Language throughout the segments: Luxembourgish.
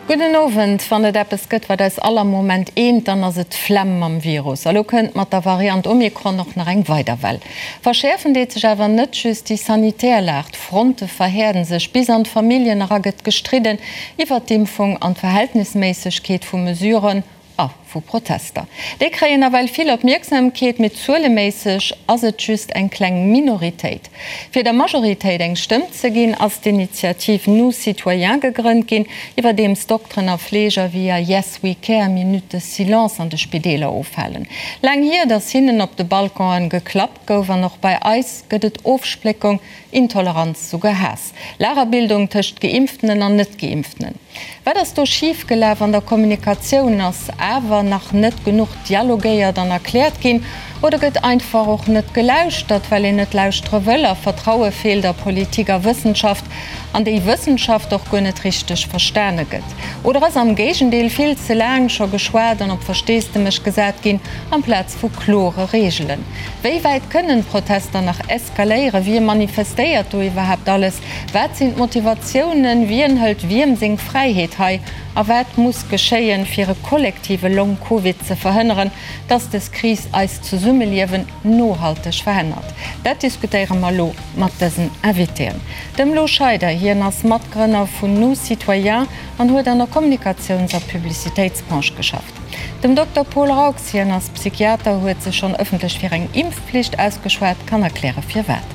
Gudden Owend. Wann et eppes gëtt, wat eis all am Moment eent, dann ass et d'Flemm mam Virus. A lo kënnt mat der Variant Omikron och nach eng weider Well. Verschäerfen deet sech awer net just déi sanitär Lag, d'Fronte verhäerden sech, bis an d'Familljen era gëtt gestridden iwwert d'Impfung an d'Verhältnisméissegkeet vu Mesuren. A vu Protester. Déi kréien nawell vill Opmierksamkeet, mee zueleméisseg ass et just eng kleng Minoritéit. Fir der Majoritéit eng Stëmm ze ginn, ass d'Initiativ Nous Citoyens gegrënnt ginn, iwwerdeems Dokteren a Fleeger via Yes We Care Minutes de silence an de Spideeler ofhalen. Laang hier, datt hinnen op de Balconen geklappt gouf an och bei eis gëtt et Ofspléckung, Intoleranz, souguer Haass. Lagerbildung tëscht Geimpftenen an Net-Geimpftenen. Wat ass do schif gelaf an der Kommunikatioun? Ass awer nach net genuch dialogéiert an erkläert ginn? Oder gëtt einfach och net gelauschtert, well een net lauschtere wëll a Vertraue feelt a Politik a Wëssenschaft an déi Wëssenschaft och guer net richteg verstane gëtt? Oder ass am Géigendeel vill ze laang scho geschwat an op Versteesdemech gesat ginn amplaz vu klore Reegelen? Wéi wäit kënnen d'Protester nach eskaléieren? Wie manifestéiert do iwwerhaapt alles? Wat sinn d'Motivatiounen? Wien hëlt wiem seng Fräiheet hei? A wat muss geschéien, fir e kollektive Long Covid ze verhënneren, dass des Kris eist Zesummeliewen nohalteg verännert? Dat diskutéiere mer elo mat dësen Invitéen. Dem Lou Scheider, hien ass Matgrënner vun Nous Citoyens an huet an der Kommunikatiouns a Publicitéitsbranche geschafft. Dem Dokter Paul Raux, hien ass Psychiater, huet sech schonn ëffentlech fir eng Impfpflicht ausgeschwat, kann erkläre firwat.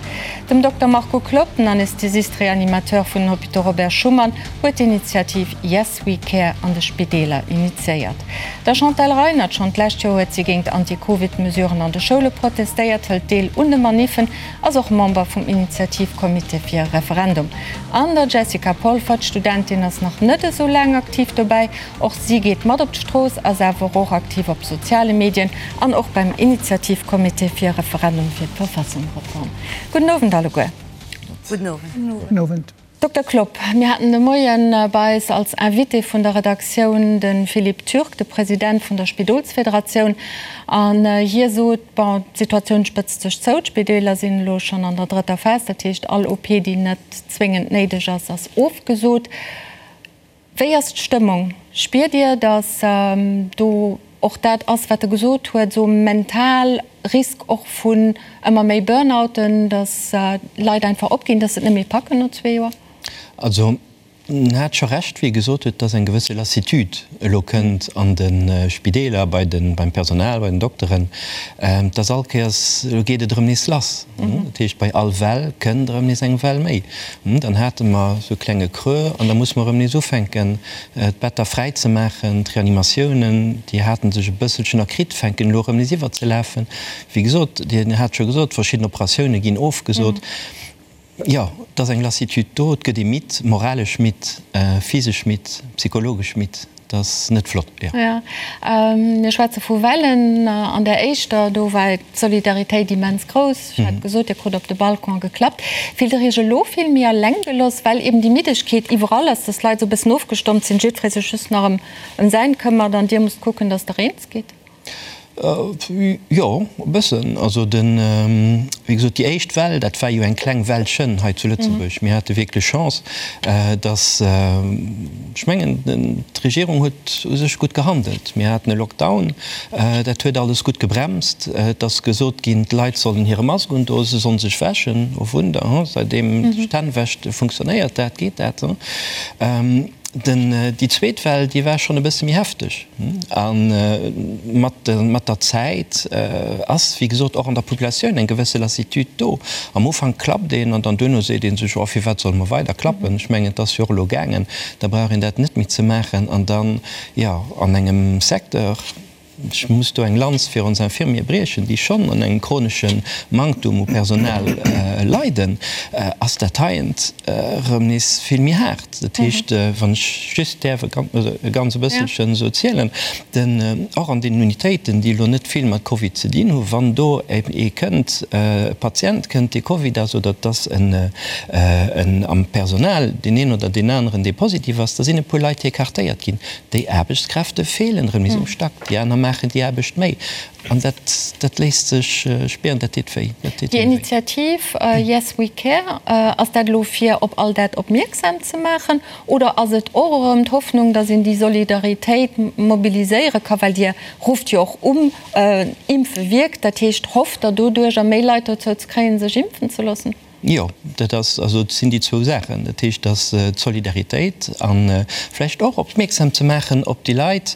Dem Dokter Marco Klopp, den Anästhesist-Reanimateur vun den Hôpitaux Robert Schuman, huet d'Initiativ Yes We Care an de Spideeler initiéiert. Der Chantal Reinert, schonn d'lescht Joer huet si géint Anti-Covid-Mesuren an de Schoule protestéiert, hëlt deel un de Maniffen, ass och Member vum Initiativcomité fir e Referendum. An der Jessica Polfert, Studentin, ass nach net esou laang aktiv dobäi, Och si geet mat op d'Strooss, ass awer och aktiv op soziale Medien an och beim Initiativcomité fir e Referendum fir d'Verfassungreform. Gudden Owend alleguer. Gudden Owend. Gudden Owend. Dokter Klopp, mir haten de Moie bei eis als Invité vun der Redaktioun de Philippe Türk, de President vun der Spidolsfederatioun, an hie sot, bon, d'Situatioun spëtzt sech zou, d'Spideeler sinn elo schonn an der drëtter Phas, dat heescht all OP, déi net zwéngend néideg ass, ass ofgesot. Wéi ass d'Stëmmung? Spiert Dir, datt do och dat ass, wat e gesot huet, esou mental Risk och vun ëmmer méi Burnouten, datt Leit einfach opginn, datt se et net méi packen no zwee Joer? Also en hat scho Recht, wéi e gesot huet, datt eng gewësse Lassitude elo kënnt an de Spideeler, bei de, beim Personal, bei den Dokteren, datt all Kéiers, elo geet et erëm nees lass. Dat heescht, bei all Well kënnt erëm nees eng Well méi. Dann hate mer esou e klenge Creux an da musse mer erëm nees ufänken, d'Better fräi ze maachen. D'Reanimatiounen, déi hate sech e bësselchen erkritt, fänken elo erëm nees iwwerzelafen. Wéi gesot, Dir hat scho gesot, verschidden Operatioune ginn ofgesot. Jo, et ass eng Lassitude do, et gëtt ee midd, moralesch midd, physesch midd, psychologesch midd. Dat ass net flott, jo. Jo, mir schwätze vu Wellen. An där éischter, do war d'Solidaritéit immens grouss. Ech hat gesot, Dir krut op de Balcon geklappt. Fillt Der Iech elo vill méi eleng gelooss, well eben déi Middegkeet iwwerall ass, dass d'Leit esou e bëssen ofgestompt sinn, jiddweree sech just nach ëm säin këmmert an Dir musst kucken, dass Der eens gitt? Jo, e bëssen. Also den, wéi gesot, déi éischt Well, dat war jo eng kleng Wellchen hei zu Lëtzebuerg. Mir hate wierklech Chance, datt, ech mengen, d'Regierung huet u sech gutt gehandelt. Mir haten e Lockdown, dat huet alles gutt gebremst. Et ass gesot ginn, d'Leit sollen hire Mask undoen, se sollen sech wäschen. Oh Wunder, hu, säitdeem sech d'Hänn wäscht, funktionéiert dat, geet dat. Den, déi zweet Well, déi war schonn e bësse méi hefteg. A mat, mat der Zäit ass, wéi gesot, och an der Populatioun eng gewësse Lassitude do. Am Ufank klappt een an dann duerno seet ee sech, oh, firwat solle mer weider klappen? Ech mengen, et ass jo och elo gaangen, da brauch een dat net méi ze maachen. An dann, jo, an engem Secteur, Ech muss do eng Lanz fir ons Infirmiere briechen, déi schonn un engem chronesche Manktum u Personal leiden, ass dat heient erëm nees vill méi haart. Dat heescht, wann ech just däerf e ganz e bësselchen esou zielen, den, och an deenen Unitéiten, déi elo net vill mat Covid ze dinn hu, wann do ee kënnt, e Patient kënnt, dee Covid ass, oder et ass en am Personal, deen een oder deen aneren, dee positiv ass, da sinn e puer Leit, déi écartéiert ginn. Déi Aarbechtskräfte feelen erëm nees um Stack. Déi aner maachen. maachen déi Aarbecht méi. An dat, dat léisst sech spieren, dat deet wéi. Dat deet Déi hinnen wéi. Initiativ Yes We Care, ass dat elo fir op all dat opmierksam ze maachen oder ass et och erëm d'Hoffnung, datt een déi Solidaritéit mobiliséiere ka, well Dir rufft jo och um, Impfe wierkt, dat heescht, hofft Der doduercher méi Leit dozou ze kréien, sech impfen ze loossen? Jo, dat ass, also et sinn déi zwou Saachen. Dat heescht, dass d'Solidaritéit a vläicht och opmierksam ze maachen op déi Leit,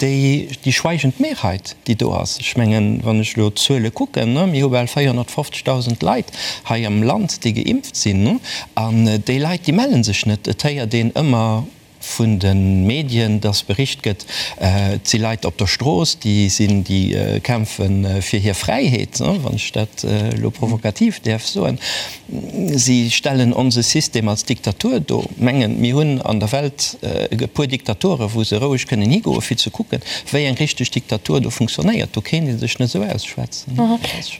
déi, déi schweigend Mehrheit, déi do ass. Ech mengen, wann ech elo d'Zuele kucken, mir hu bal 450.000 Leit hei am Land, déi geimpft sinn, an déi Leit, déi melle sech net. Et héiert een ëmmer vun de Medien, dass bericht gëtt, et si Leit op der Strooss, déi sinn, déi kämpfe fir hir Fräiheet, wann ech dat elo provokativ däerf soen. Si stellen onse System als Diktatur do, mengen, mir hunn an der Welt e puer Diktaturen, wou se roueg kënnen higoen, fir ze kucken, wéi eng richteg Diktatur do funktionéiert. Do kéint ee sech net esou ausschwätzen.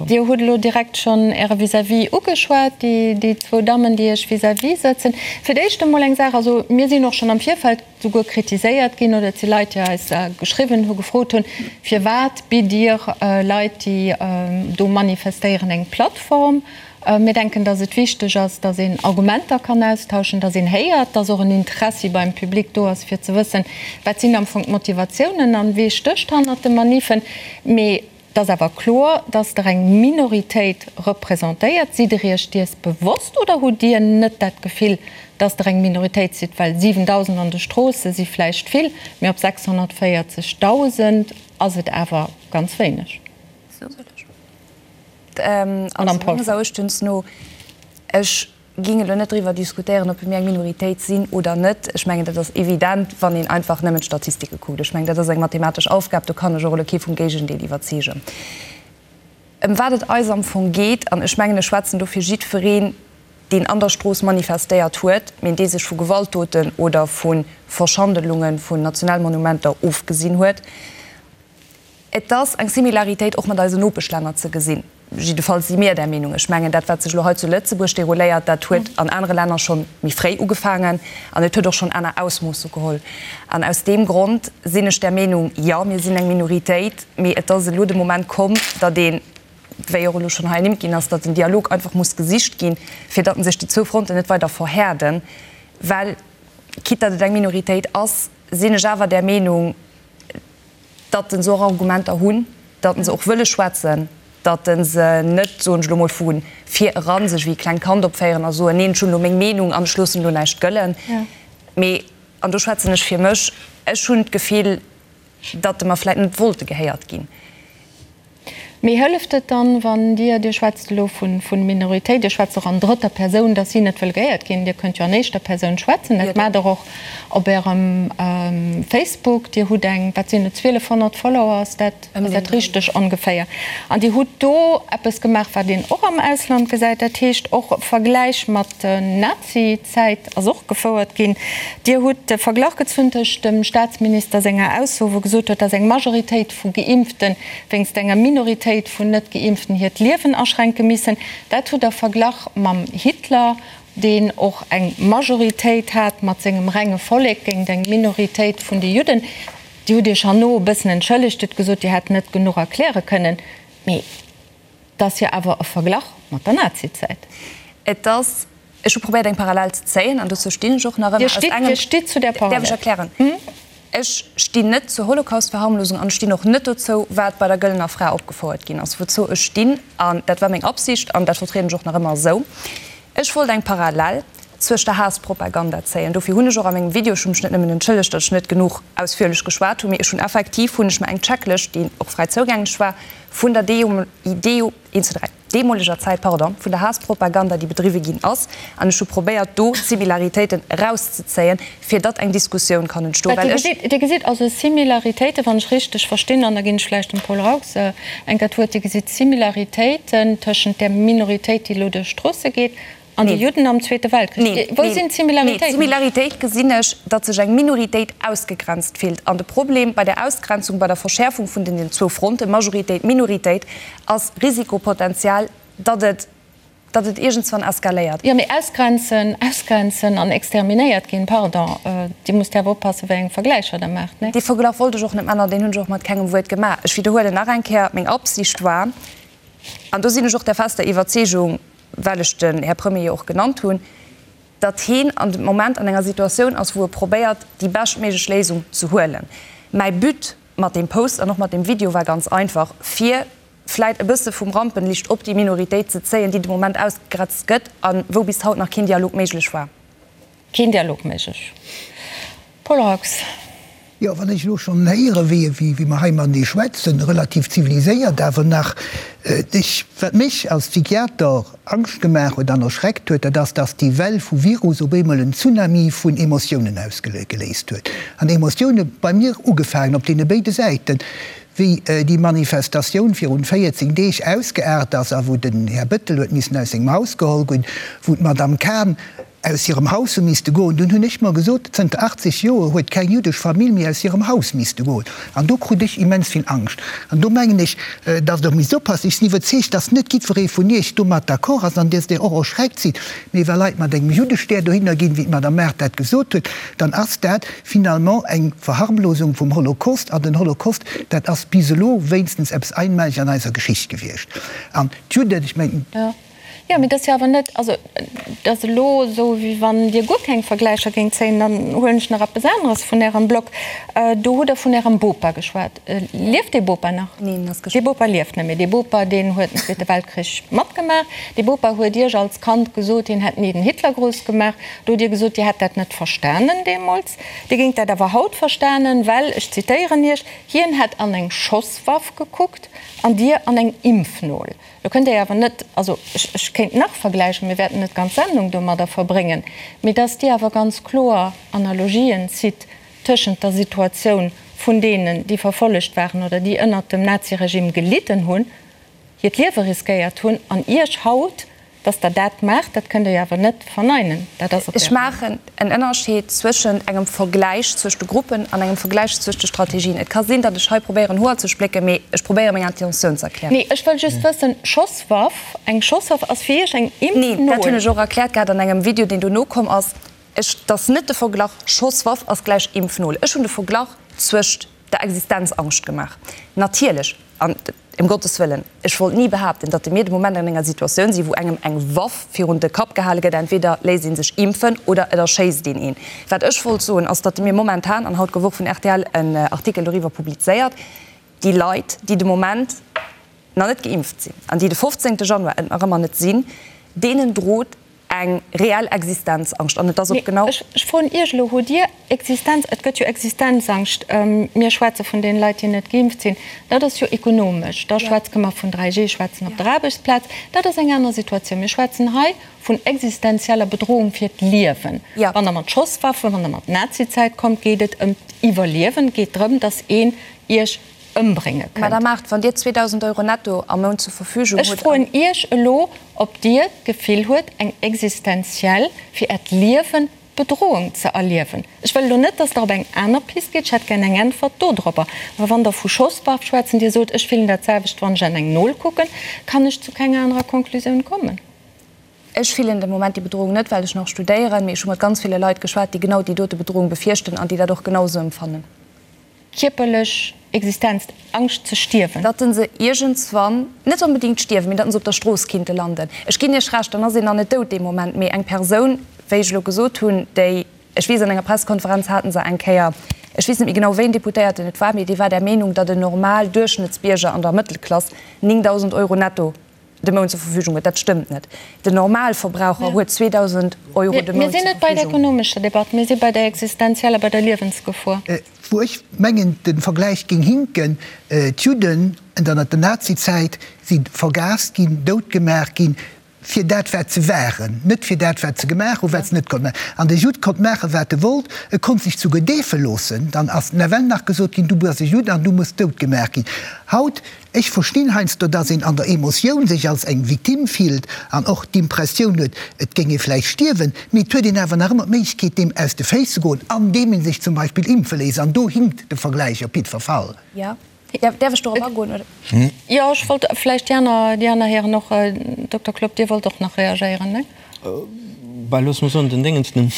Dir hutt elo direkt schonn Äre Vis-à-vis ugeschwat, déi zwou Dammen, déi Iech vis-à-vis sëtzen. Fir d'éischt emol eng Saach, also mir sinn och schonn am Virfeld souguer kritiséiert ginn oder et si Leit, déi eis geschriwwen hu gefrot hunn, Firwat bitt Dir Leit, déi do manifestéieren, eng Plattform? Mir denken, datt et wichteg ass, datt een Argumenter kann austauschen, datt een héiert, datt och en Interessi beim Public do ass, fir ze wëssen, wat sinn am Fong d'Motivatiounen an wee stécht hannert de Maniffen. Mee Et ass awer kloer, dass Der eng Minoritéit representéiert. Sidd Der Iech dies bewosst oder hutt Dir net dat Gefill, dass Der eng Minoritéit sidd? Well 7.000 an de Stroosse si vläicht vill, mee op 640.000 ass et awer ganz wéineg. Madame Polfer. Also meines Erachtens no, ech Ging elo net driwwer diskutéieren, ob mir eng Minoritéit sinn oder net. Ech mengen, dat ass evident, wann een einfach nëmmen d'Statistike kuckt. Ech mengen, dat ass eng mathematesch Aufgab, do kann ech och elo kee vum Géigendeel iwwerzeegen. Ëm wat et eis am Fong geet, an ech mengen, ech schwätzen do fir jiddwereen, deen an der Strooss manifestéiert huet, mee dee sech vu Gewaltdoten oder vu Verschandelunge vun Nationalmonumenter ofgesinn huet, Et ass eng Similaritéit och mat eisen Nopeschlänner ze gesinn. Jiddefalls si mir där Meenung. Ech mengen, dat, wat sech elo hei zu Lëtzebuerg derouléiert, dat huet an anere Länner scho méi fréi ugefaangen an et huet och schonn aner Ausmoosse geholl. An aus deem Grond sinn ech där Meenung, jo, mir sinn eng Minoritéit, mee et ass elo de Moment komm, datt een, wéi och elo schonn hei ernimmt ginn ass, datt den Dialog einfach muss gesicht ginn, fir datt sech déi zwou Fronten net weider verhäerden. Well, quitte datt et eng Minoritéit ass, sinn ech awer där Meenung, datt se och Argumenter hunn, datt se och wëlle schwätzen, datt se net, soen ech elo mol, vu vir eran sech wéi e klengt Kand opféieren a soen, neen, ech hunn elo meng Meenung an ech loossen elo näischt gëllen. Mee, an do schwätzen ech fir mech, ech hunn d'Gefill, datt mer vläicht net wollte gehéiert ginn. Mee hëlleft et dann, wann Dir, Dir schwätzt elo vu Minoritéit, Dir schwätzt och an drëtter Persoun, datt si net wëll gehéiert ginn, Dir kënnt jo an éischter Persoun schwätzen, dat maacht Der och op Ärem Facebook, Dir hutt eng, wat sinn et, 1200 Follower, ass dat, ass dat richteg ongeféier? An Dir hutt do eppes gemaach, wat een och am Ausland gesäit, dat heescht och e Vergläich mat Nazi-Zäit ass och gefouert ginn. Dir hutt de Verglach gezunn tëscht dem Staatsminister senger Ausso, wou gesot huet, datt eng Majoritéit vu Geimpften wéinst enger Minoritéit vun Net-Geimpften hiert Liewen aschränke missen. Dat hutt Der verglach mam Hitler, deen och eng Majoritéit hat mat sengem renge Vollek géint eng Minoritéit vun de Judden. Dir hutt Iech herno e bëssen entschëllegt, hutt gesot, Dir hätt net genuch erkläre kënnen. Mee et ass jo awer e Verglach mat der Nazizäit. Et ass, ech hu probéiert eng Parallel ze zéien an dozou stinn ech och nach ëmmer. Dir stitt, Dir stitt zu där Parallel? Däerf ech erklären? Ech stinn net zur Holocaust-Verharmlosung an ech stinn och net dozou, wat bei der Gëllener Fra opgefouert ginn ass. Wouzou ech stinn, an dat war meng Absicht an dat vertrieden ech och nach ëmmer esou, ech wollt eng Parallel zwëscht der Haass-Propaganda zéien. Dofir hunn ech och a mengem Video, ech hu mech net nëmmen entschëllegt, datt ech net genuch ausführlech geschwat hunn, mee ech hunn effektiv hunn ech mer eng Checklëscht, déi och fräi zougänglech war, vun der deemoleger Zäit, pardon, vun der Haass-Propaganda, déi bedriwwe ginn ass, an ech hu probéiert, do d'Similaritéiten erauszezéien, fir datt eng Diskussioun kann entstoen, well ech. Dir gesitt also Similaritéiten, wann ech richteg verstinn, an da ginn ech vläicht dem Paul Raux eng Kéier d'Wuert, Dir gesitt Similaritéiten tëschent där Minoritéit, déi elo duerch d'Stroosse geet, An déi Judden am Zweete Weltkrich. Wou sinn d'Similaritéiten? Nee, d'Similaritéit gesinn ech, datt sech eng Minoritéit ausgegrenzt fillt. An de Problem bei der Ausgrenzung, bei der Verschäerfung vun den zwou Fronten, Majoritéit, Minoritéit, ass Risikopotenzial, datt et, datt et iergendswann eskaléiert. Jo, mee ausgrenzen, ausgrenzen an exterminéiert ginn, pardon, Dir musst awer oppassen, wéi eng Vergläicher Der maacht, nee? Dee Verglach wollt ech och net maachen an deen hunn ech och mat kengem Wuert gemaach. Ech widderhuelen nach eng Kéier, Meng Absicht war, an do sinn ech och der fester Iwwerzeegung, well ech den Här Premier jo och genannt hunn, datt heen an dem Moment an enger Situatioun ass, wou e probéiert, déi beschtméiglech Léisung ze huelen. Mäi But mat deem Post an och mat deem Video war ganz einfach, fir vläit e bësse vum Rampenlicht op déi Minoritéit ze zéien, déi de Moment ausgegrenzt gëtt a wou bis haut nach keen Dialog méiglech war. Keen Dialog méiglech. Paul Raux. Jo, wann ech elo schonn héieren, wéi, wéi mer hei matenee schwätzen, relativ ziviliséiert awer nach, ech, wat mech als Psychiater Angscht gemaach huet an erschreckt huet, dat ass, dass déi Well vu Virus op eemol en Tsunami vun Emotiounen ausgeléist huet. An Emotioune bei mir ugefaangen op deene béide Säiten, wéi déi Manifestatioun virun 14 Deeg ausgeaart ass a wou den Här Bettel huet missen aus sengem Haus geholl ginn, wou d'Madame Cahen aus hirem Haus hu misste goen. Dunn hunn ech mer gesot, zënter 80 Joer huet keng jüddesch Famill méi aus hirem Haus misste goen. An do krut ech immens vill Angscht. An do mengen ech, datt Der misst oppassen. Ech sinn iwwerzeegt, datt net jiddweree vun Iech domat d'accord ass an datt Dir och erschreckt sidd. Mee wa Leit mat engem Juddestär dohinner ginn, wéi d'Madame Mart dat gesot huet, dann ass dat finalement eng Verharmlosung vum Holocaust. An den Holocaust, dat ass bis elo wéinstens eppes Einmaleges an eiser Geschicht gewiescht. An d'Judden, ech mengen. Jo, mee dat ass jo awer net, also et ass elo esou, wéi wann Dir guer keng Vergläicher géingt zéien. Dann huelen ech nach eppes aneres vun Ärem Blog. Do hutt Der vun Ärem Bopa geschwat. Lieft dee Bopa nach? Neen, en ass gestuerwen. Dee Bopa lieft net méi. Dee Bopa, deen huet den Zweete Weltkrich matgemaach. Dee Bopa huet Iech als Kand gesot, hien hätt ni den Hitlergruss gemaach. Do hutt Dir gesot, Dir hätt dat net verstanen deemools. Dir géingt dat awer haut verstanen, well, ech zitéieren Iech, hien hätt an eng Schosswaff gekuckt an Dir an eng Impfnol. Lo kënnt Dir awer net, also ech, ech kéint nach vergläichen, mir wäerten net d'ganz Sendung domadder verbréngen, mee dass Dir awer ganz kloer Analogien zitt tëschent der Situatioun vun deenen, déi verfollegt waren oder déi ënnert dem Naziregime gelidden hunn, hiert Liewe riskéiert hunn, an Iech haut. Dass Der dat maacht, dat kënnt Der jo awer net verneinen. Dat ass op Ech maachen en Ënnerscheed zwëschent engem Vergläich zwëscht de Gruppen an engem Vergläich zwëscht de Strategien. Et ka sinn, datt ech hei probéieren, Hoer ze splécken, mee ech probéiere meng Intentioun ze erklären. Nee, ech wëll just wëssen, Schosswaff, eng Schosswaff ass fir Iech eng Impfnol? Nee, dat hunn ech och erkläert gehat an engem Video, deen dono komm ass. Ech, et ass net de Verglach Schosswaff ass gläich Impfnol. Ech hunn de Verglach zwëscht der Existenzangscht gemaach. Natierlech, an Ëm Gottes Wëllen, ech wollt ni behaapten, datt mir de Moment an enger Situatioun sinn, wou engem eng Waff virun de Kapp gehale gëtt, entweder léisst ee sech impfen oder et erschéisst een een. Wat ech wollt soen, ass, datt mir momentan, an haut gouf och vun rtl en Artikel doriwwer publizéiert, déi Leit, déi de Moment nach net geimpft sinn an déi de 15 Januar et nach ëmmer net sinn, deenen drot eng reell Existenzangscht an et ass och genau. Ech froen Iech elo, Hutt Dir Existenz, et gëtt jo Existenzangscht, mir schwätze vun deene Leit, déi net geimpft sinn, dat ass jo ekonomesch, da schwätze mer vun 3G schwätzen op der Aarbechtsplaz, dat ass eng aner Situatioun. Mir schwätzen hei vun existenzieller Bedrohung fir d'Liewen. Wann Der mat Schosswaffen, wann Der mat Nazizäit kommt, geet et ëm d'Iwwerliewen, et geet drëm, datt een Iech ëmbrénge kënnt. Madame Mart, wann Dir 2.000 Euro netto am Mount zur Verfügung hutt. Ech froen Iech elo, ob Dir d'Gefill huet, eng existenziell, fir Äert Liewen, Bedrohung ze erliewen. Ech wëll elo net, dass Der op eng aner Pist gitt, ech hätt gär eng Äntwert dodropper. Awer wann Der vu Schosswaff schwätzen, Dir sot, ech fillen dat selwecht, wann ech an eng Nol kucken, kann ech zu kenger anerer Konklusioun kommen. Ech fillen de Moment déi Bedrohung net, well ech nach studéieren, mee ech hu mat ganz ville Leit geschwat, déi genau déi dote Bedrohung befierchten an déi dat och genau esou empfannen. Kierperlech Existenz, Angscht ze stierwen. Datt se iergendswann, net onbedingt stierwen, mee datt se op der Strooss kinnte landen. Ech ginn Iech Recht, dann ass een nach net dout dee Moment, mee eng Persoun, wéi ech elo gesot hunn, déi, ech weess an enger Pressekonferenz hate se eng Kéier, ech weess net méi genau wéi en Deputéierten et war, mee dee war der Meenung, datt en normal Duerchschnëttsbierger an der Mëttelklass 9.000 Euro netto de Mount zur Verfügung huet. Dat stëmmt net. Den Normalverbraucher huet 2.000 Euro de Mount zur Verfügung. Mir sinn net bei der ekonomescher Debatt, mir si bei der existenzieller, bei der Liewensgefor. Wou ech mengen, de Vergläich géing hinken, D'Judden ënnert der Nazizäit si vergaast ginn, doutgemaach ginn, fir dat wat se waren, net fir dat wat se gemaach hunn, wat se net konnte maachen. An de Judd konnt maachen, wat e wollt, e konnt sech souguer deefe loossen. Dann ass nawell nach gesot ginn, du bass e Judd an du muss doutgemaach ginn. Haut Ech verstinn heiansdo, dass een an der Emotioun sech als eng Victime fillt an och d'Impressioun huet, et géing ee vläicht stierwen, mee et huet een awer nach ëmmer d'Méiglechkeet, deem aus de Féiss ze goen, andeem ee sech zum Beispill impfe léisst. An do hinkt de Vergläich op jiddwer Fall. Däerf ech dorop agoen, oder? Jo, ech wollt vläicht déi aner, déi aner Hären och. Dokter Klopp, Dir wollt och nach reagéieren, ne? Bah, loosse mer soen, den Déngens, den,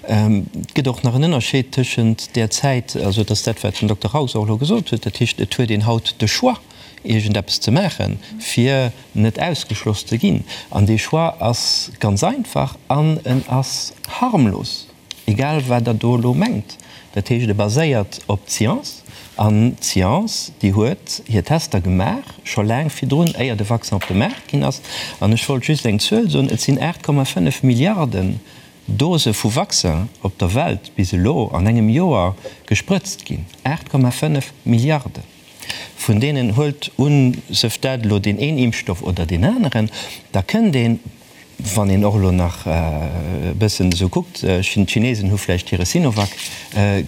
et gëtt och nach en Ënnerscheed tëschent där Zäit, also et ass dat, wat den Dokter Raus och elo gesot huet, dat heescht, et huet een haut de Choix, iergendeppes ze maachen, fir net ausgeschloss ze ginn. An dee Choix ass ganz einfach an en ass harmlos. Egal wat Der do elo mengt. Dat heescht, e baséiert op d'Science. An d'Science, déi huet hir Tester gemaach, scho laang virdrun, éier de Vaccin op de Maart ginn ass. An ech wollt just eng Zuel soen, Et sinn 8,5 Milliarden Dose vu Vaccin op der Welt bis elo an engem Joer gesprëtzt ginn. 8,5 Milliarden! Vun deenen, huelt un, sëft dat elo deen een Impfstoff oder deen aneren, da kënnt een, Wann een och elo nach e bëssen esou kuckt, d'Chinesen hu vläicht hire Sinovac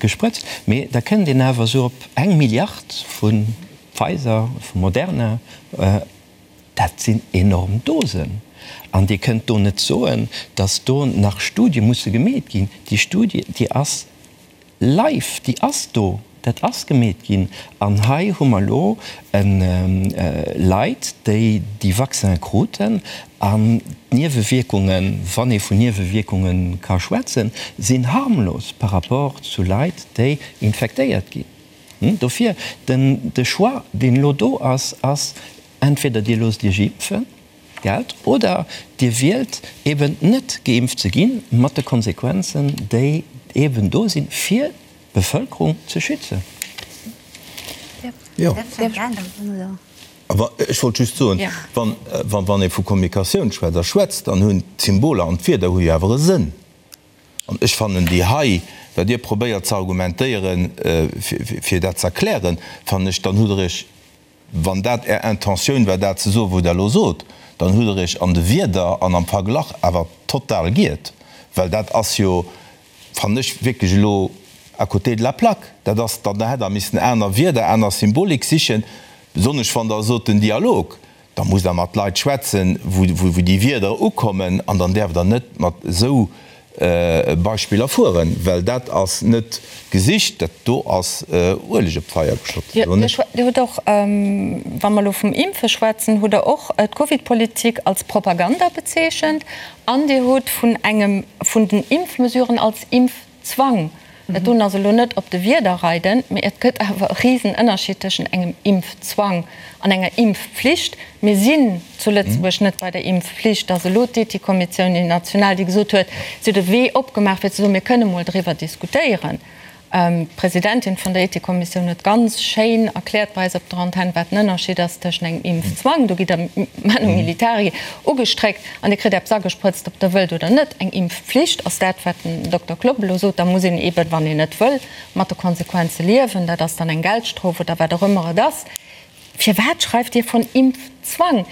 gesprëtzt, mee da kënnt een awer esou op eng Milliard vu Pfizer, vu Moderna. Dat sinn enorm Dosen. An Dir kënnt do net soen, datt do nach Studie musse gemeet ginn. Déi Studie, déi ass Live, déi ass do, dat ass gemeet ginn. An hei hu mer elo Leit, déi déi Vaccin kruten an d'Niewewierkungen, wann ee vun Niewewierkunge ka schwätzen, sinn harmlos par rapport zu Leit, déi infektéiert ginn. Dofir, den, de Choix, deen elo do ass, ass, entweder Dir loosst Iech impfen, Geld, oder Dir wielt eben net geimpft ze ginn, mat de Konsequenzen, déi eben do sinn, fir d'Bevëlkerung ze schützen. Jo. Awer ech wollt just soen, wann ee vu Kommunikatioun schwätzt a schwätzt, dann hunn d'Symboler an d'Wierder hu jo awer e Sënn. An ech fannen déi hei, wat Dir probéiert ze argumentéieren, fir dat ze erklären, fannen ech, dann hutt Der Iech Wann dat Är Intentioun war, dat ze soen, wou Der elo sot, dann hutt Der Iech an de Wierder an am Verglach awer total giert, well dat ass jo, fannen ech, wierklech elo à côté de la plaque. Dat ass dann, da hätt Der missen aner Wierder, aner Symbolik sichen, besonnesch wann Der sot, den Dialog, da musst Der mat Leit schwätzen, wou déi Wierder ukommen, an dann däerft Der net mat esou Beispiller fueren, well dat ass net gesicht, dat do ass Ueleg op d'Feier geschott. Dir hutt och, wa mer elo vum Impfe schwätzen, hutt Der och d'Covidpolitik als Propaganda bezeechent an Dir hutt vun engem vun den Impfmesuren als Impfzwang Dat doen ass elo net op de Wierder reiden, mee et gëtt awer e Risenënnerschied tëschent engem Impfzwang an enger Impfpflicht. Mir sinn zu Lëtzebuerg net bei der Impfpflicht. Et ass elo d'Ethikkommissioun, déi national, déi gesot huet, si huet e Wee opgemaach fir ze soen, mir kënne mol driwwer diskutéieren. D'Presidentin vun der Ethikkommissioun huet ganz schéin erkläert bei eis op der Antenn, wat den Ënnerschied ass tëschent engem Impfzwang, do gitt Der manu militari ugestréckt an Dir kritt eppes agesprëtzt, ob Der wëllt oder net. Eng Impfpflicht ass dat, wat den Dokter Klopp elo sot. Da muss een eeben, wann een net wëll, mat de Konsequenze liewen. Dat ass dann eng Geldstrof oder wat och ëmmer et ass. Firwat schreift Dir von Impfzwang?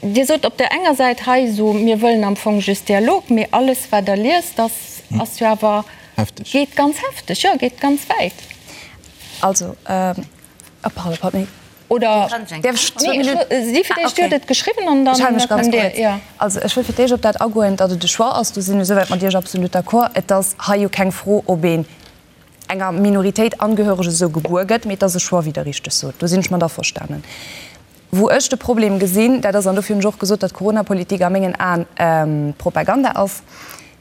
Dir sot op där enger Säit hei esou, mir wëllen am Fong just Dialog, mee alles, wat Der liest, ass jo awer, geet ganz hefteg, jo, geet ganz wäit. Also, pardon, pardon. Oder, si fir d'éischt, Dir hutt et geschriwwen an dann kënnt Dir, jo. Also, ech wëll fir d'éischt op dat agoen, datt et e Choix ass. Do sinn ech esouwäit mat Iech absolut d'accord. Et ass hei jo keng Fro, ob een enger Minoritéit angehöreg esou gebuer gëtt, mee et ass e Choix, wéi Der richteg sot. Do sinn ech mat averstanen. Wou ech de Problem gesinn, dat ass, an dofir hunn ech och gesot, datt d'Coronapolitik a mengen Aen Propaganda ass,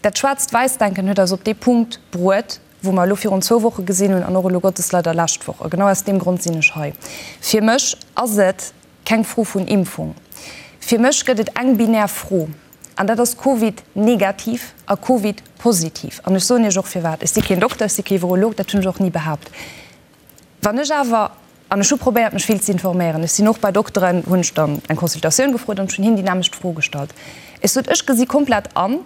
dat Schwaarzt-Wäiss-Denken huet eis op dee Punkt bruet, wou mer elo virun zwou Woche gesinn hunn an och elo Gottes leider lescht Woch. A genau aus deem Grond sinn ech hei. Fir mech ass et keng Fro vun Impfung. Fir mech gëtt et eng binär Fro, an dat ass Covid negativ a Covid positiv. An ech soen Iech och firwat. Ech si keen Dokter, ech si kee Virolog, dat hunn ech och ni behaapt. Wann ech awer, an ech hu probéiert mech vill ze informéieren, ech sinn och bei Dokteren, hunn ech dann eng Consultatioun gefrot an ech hunn hinnen déi nämmlecht Fro gestallt. Ech sot, ech gesi komplett an,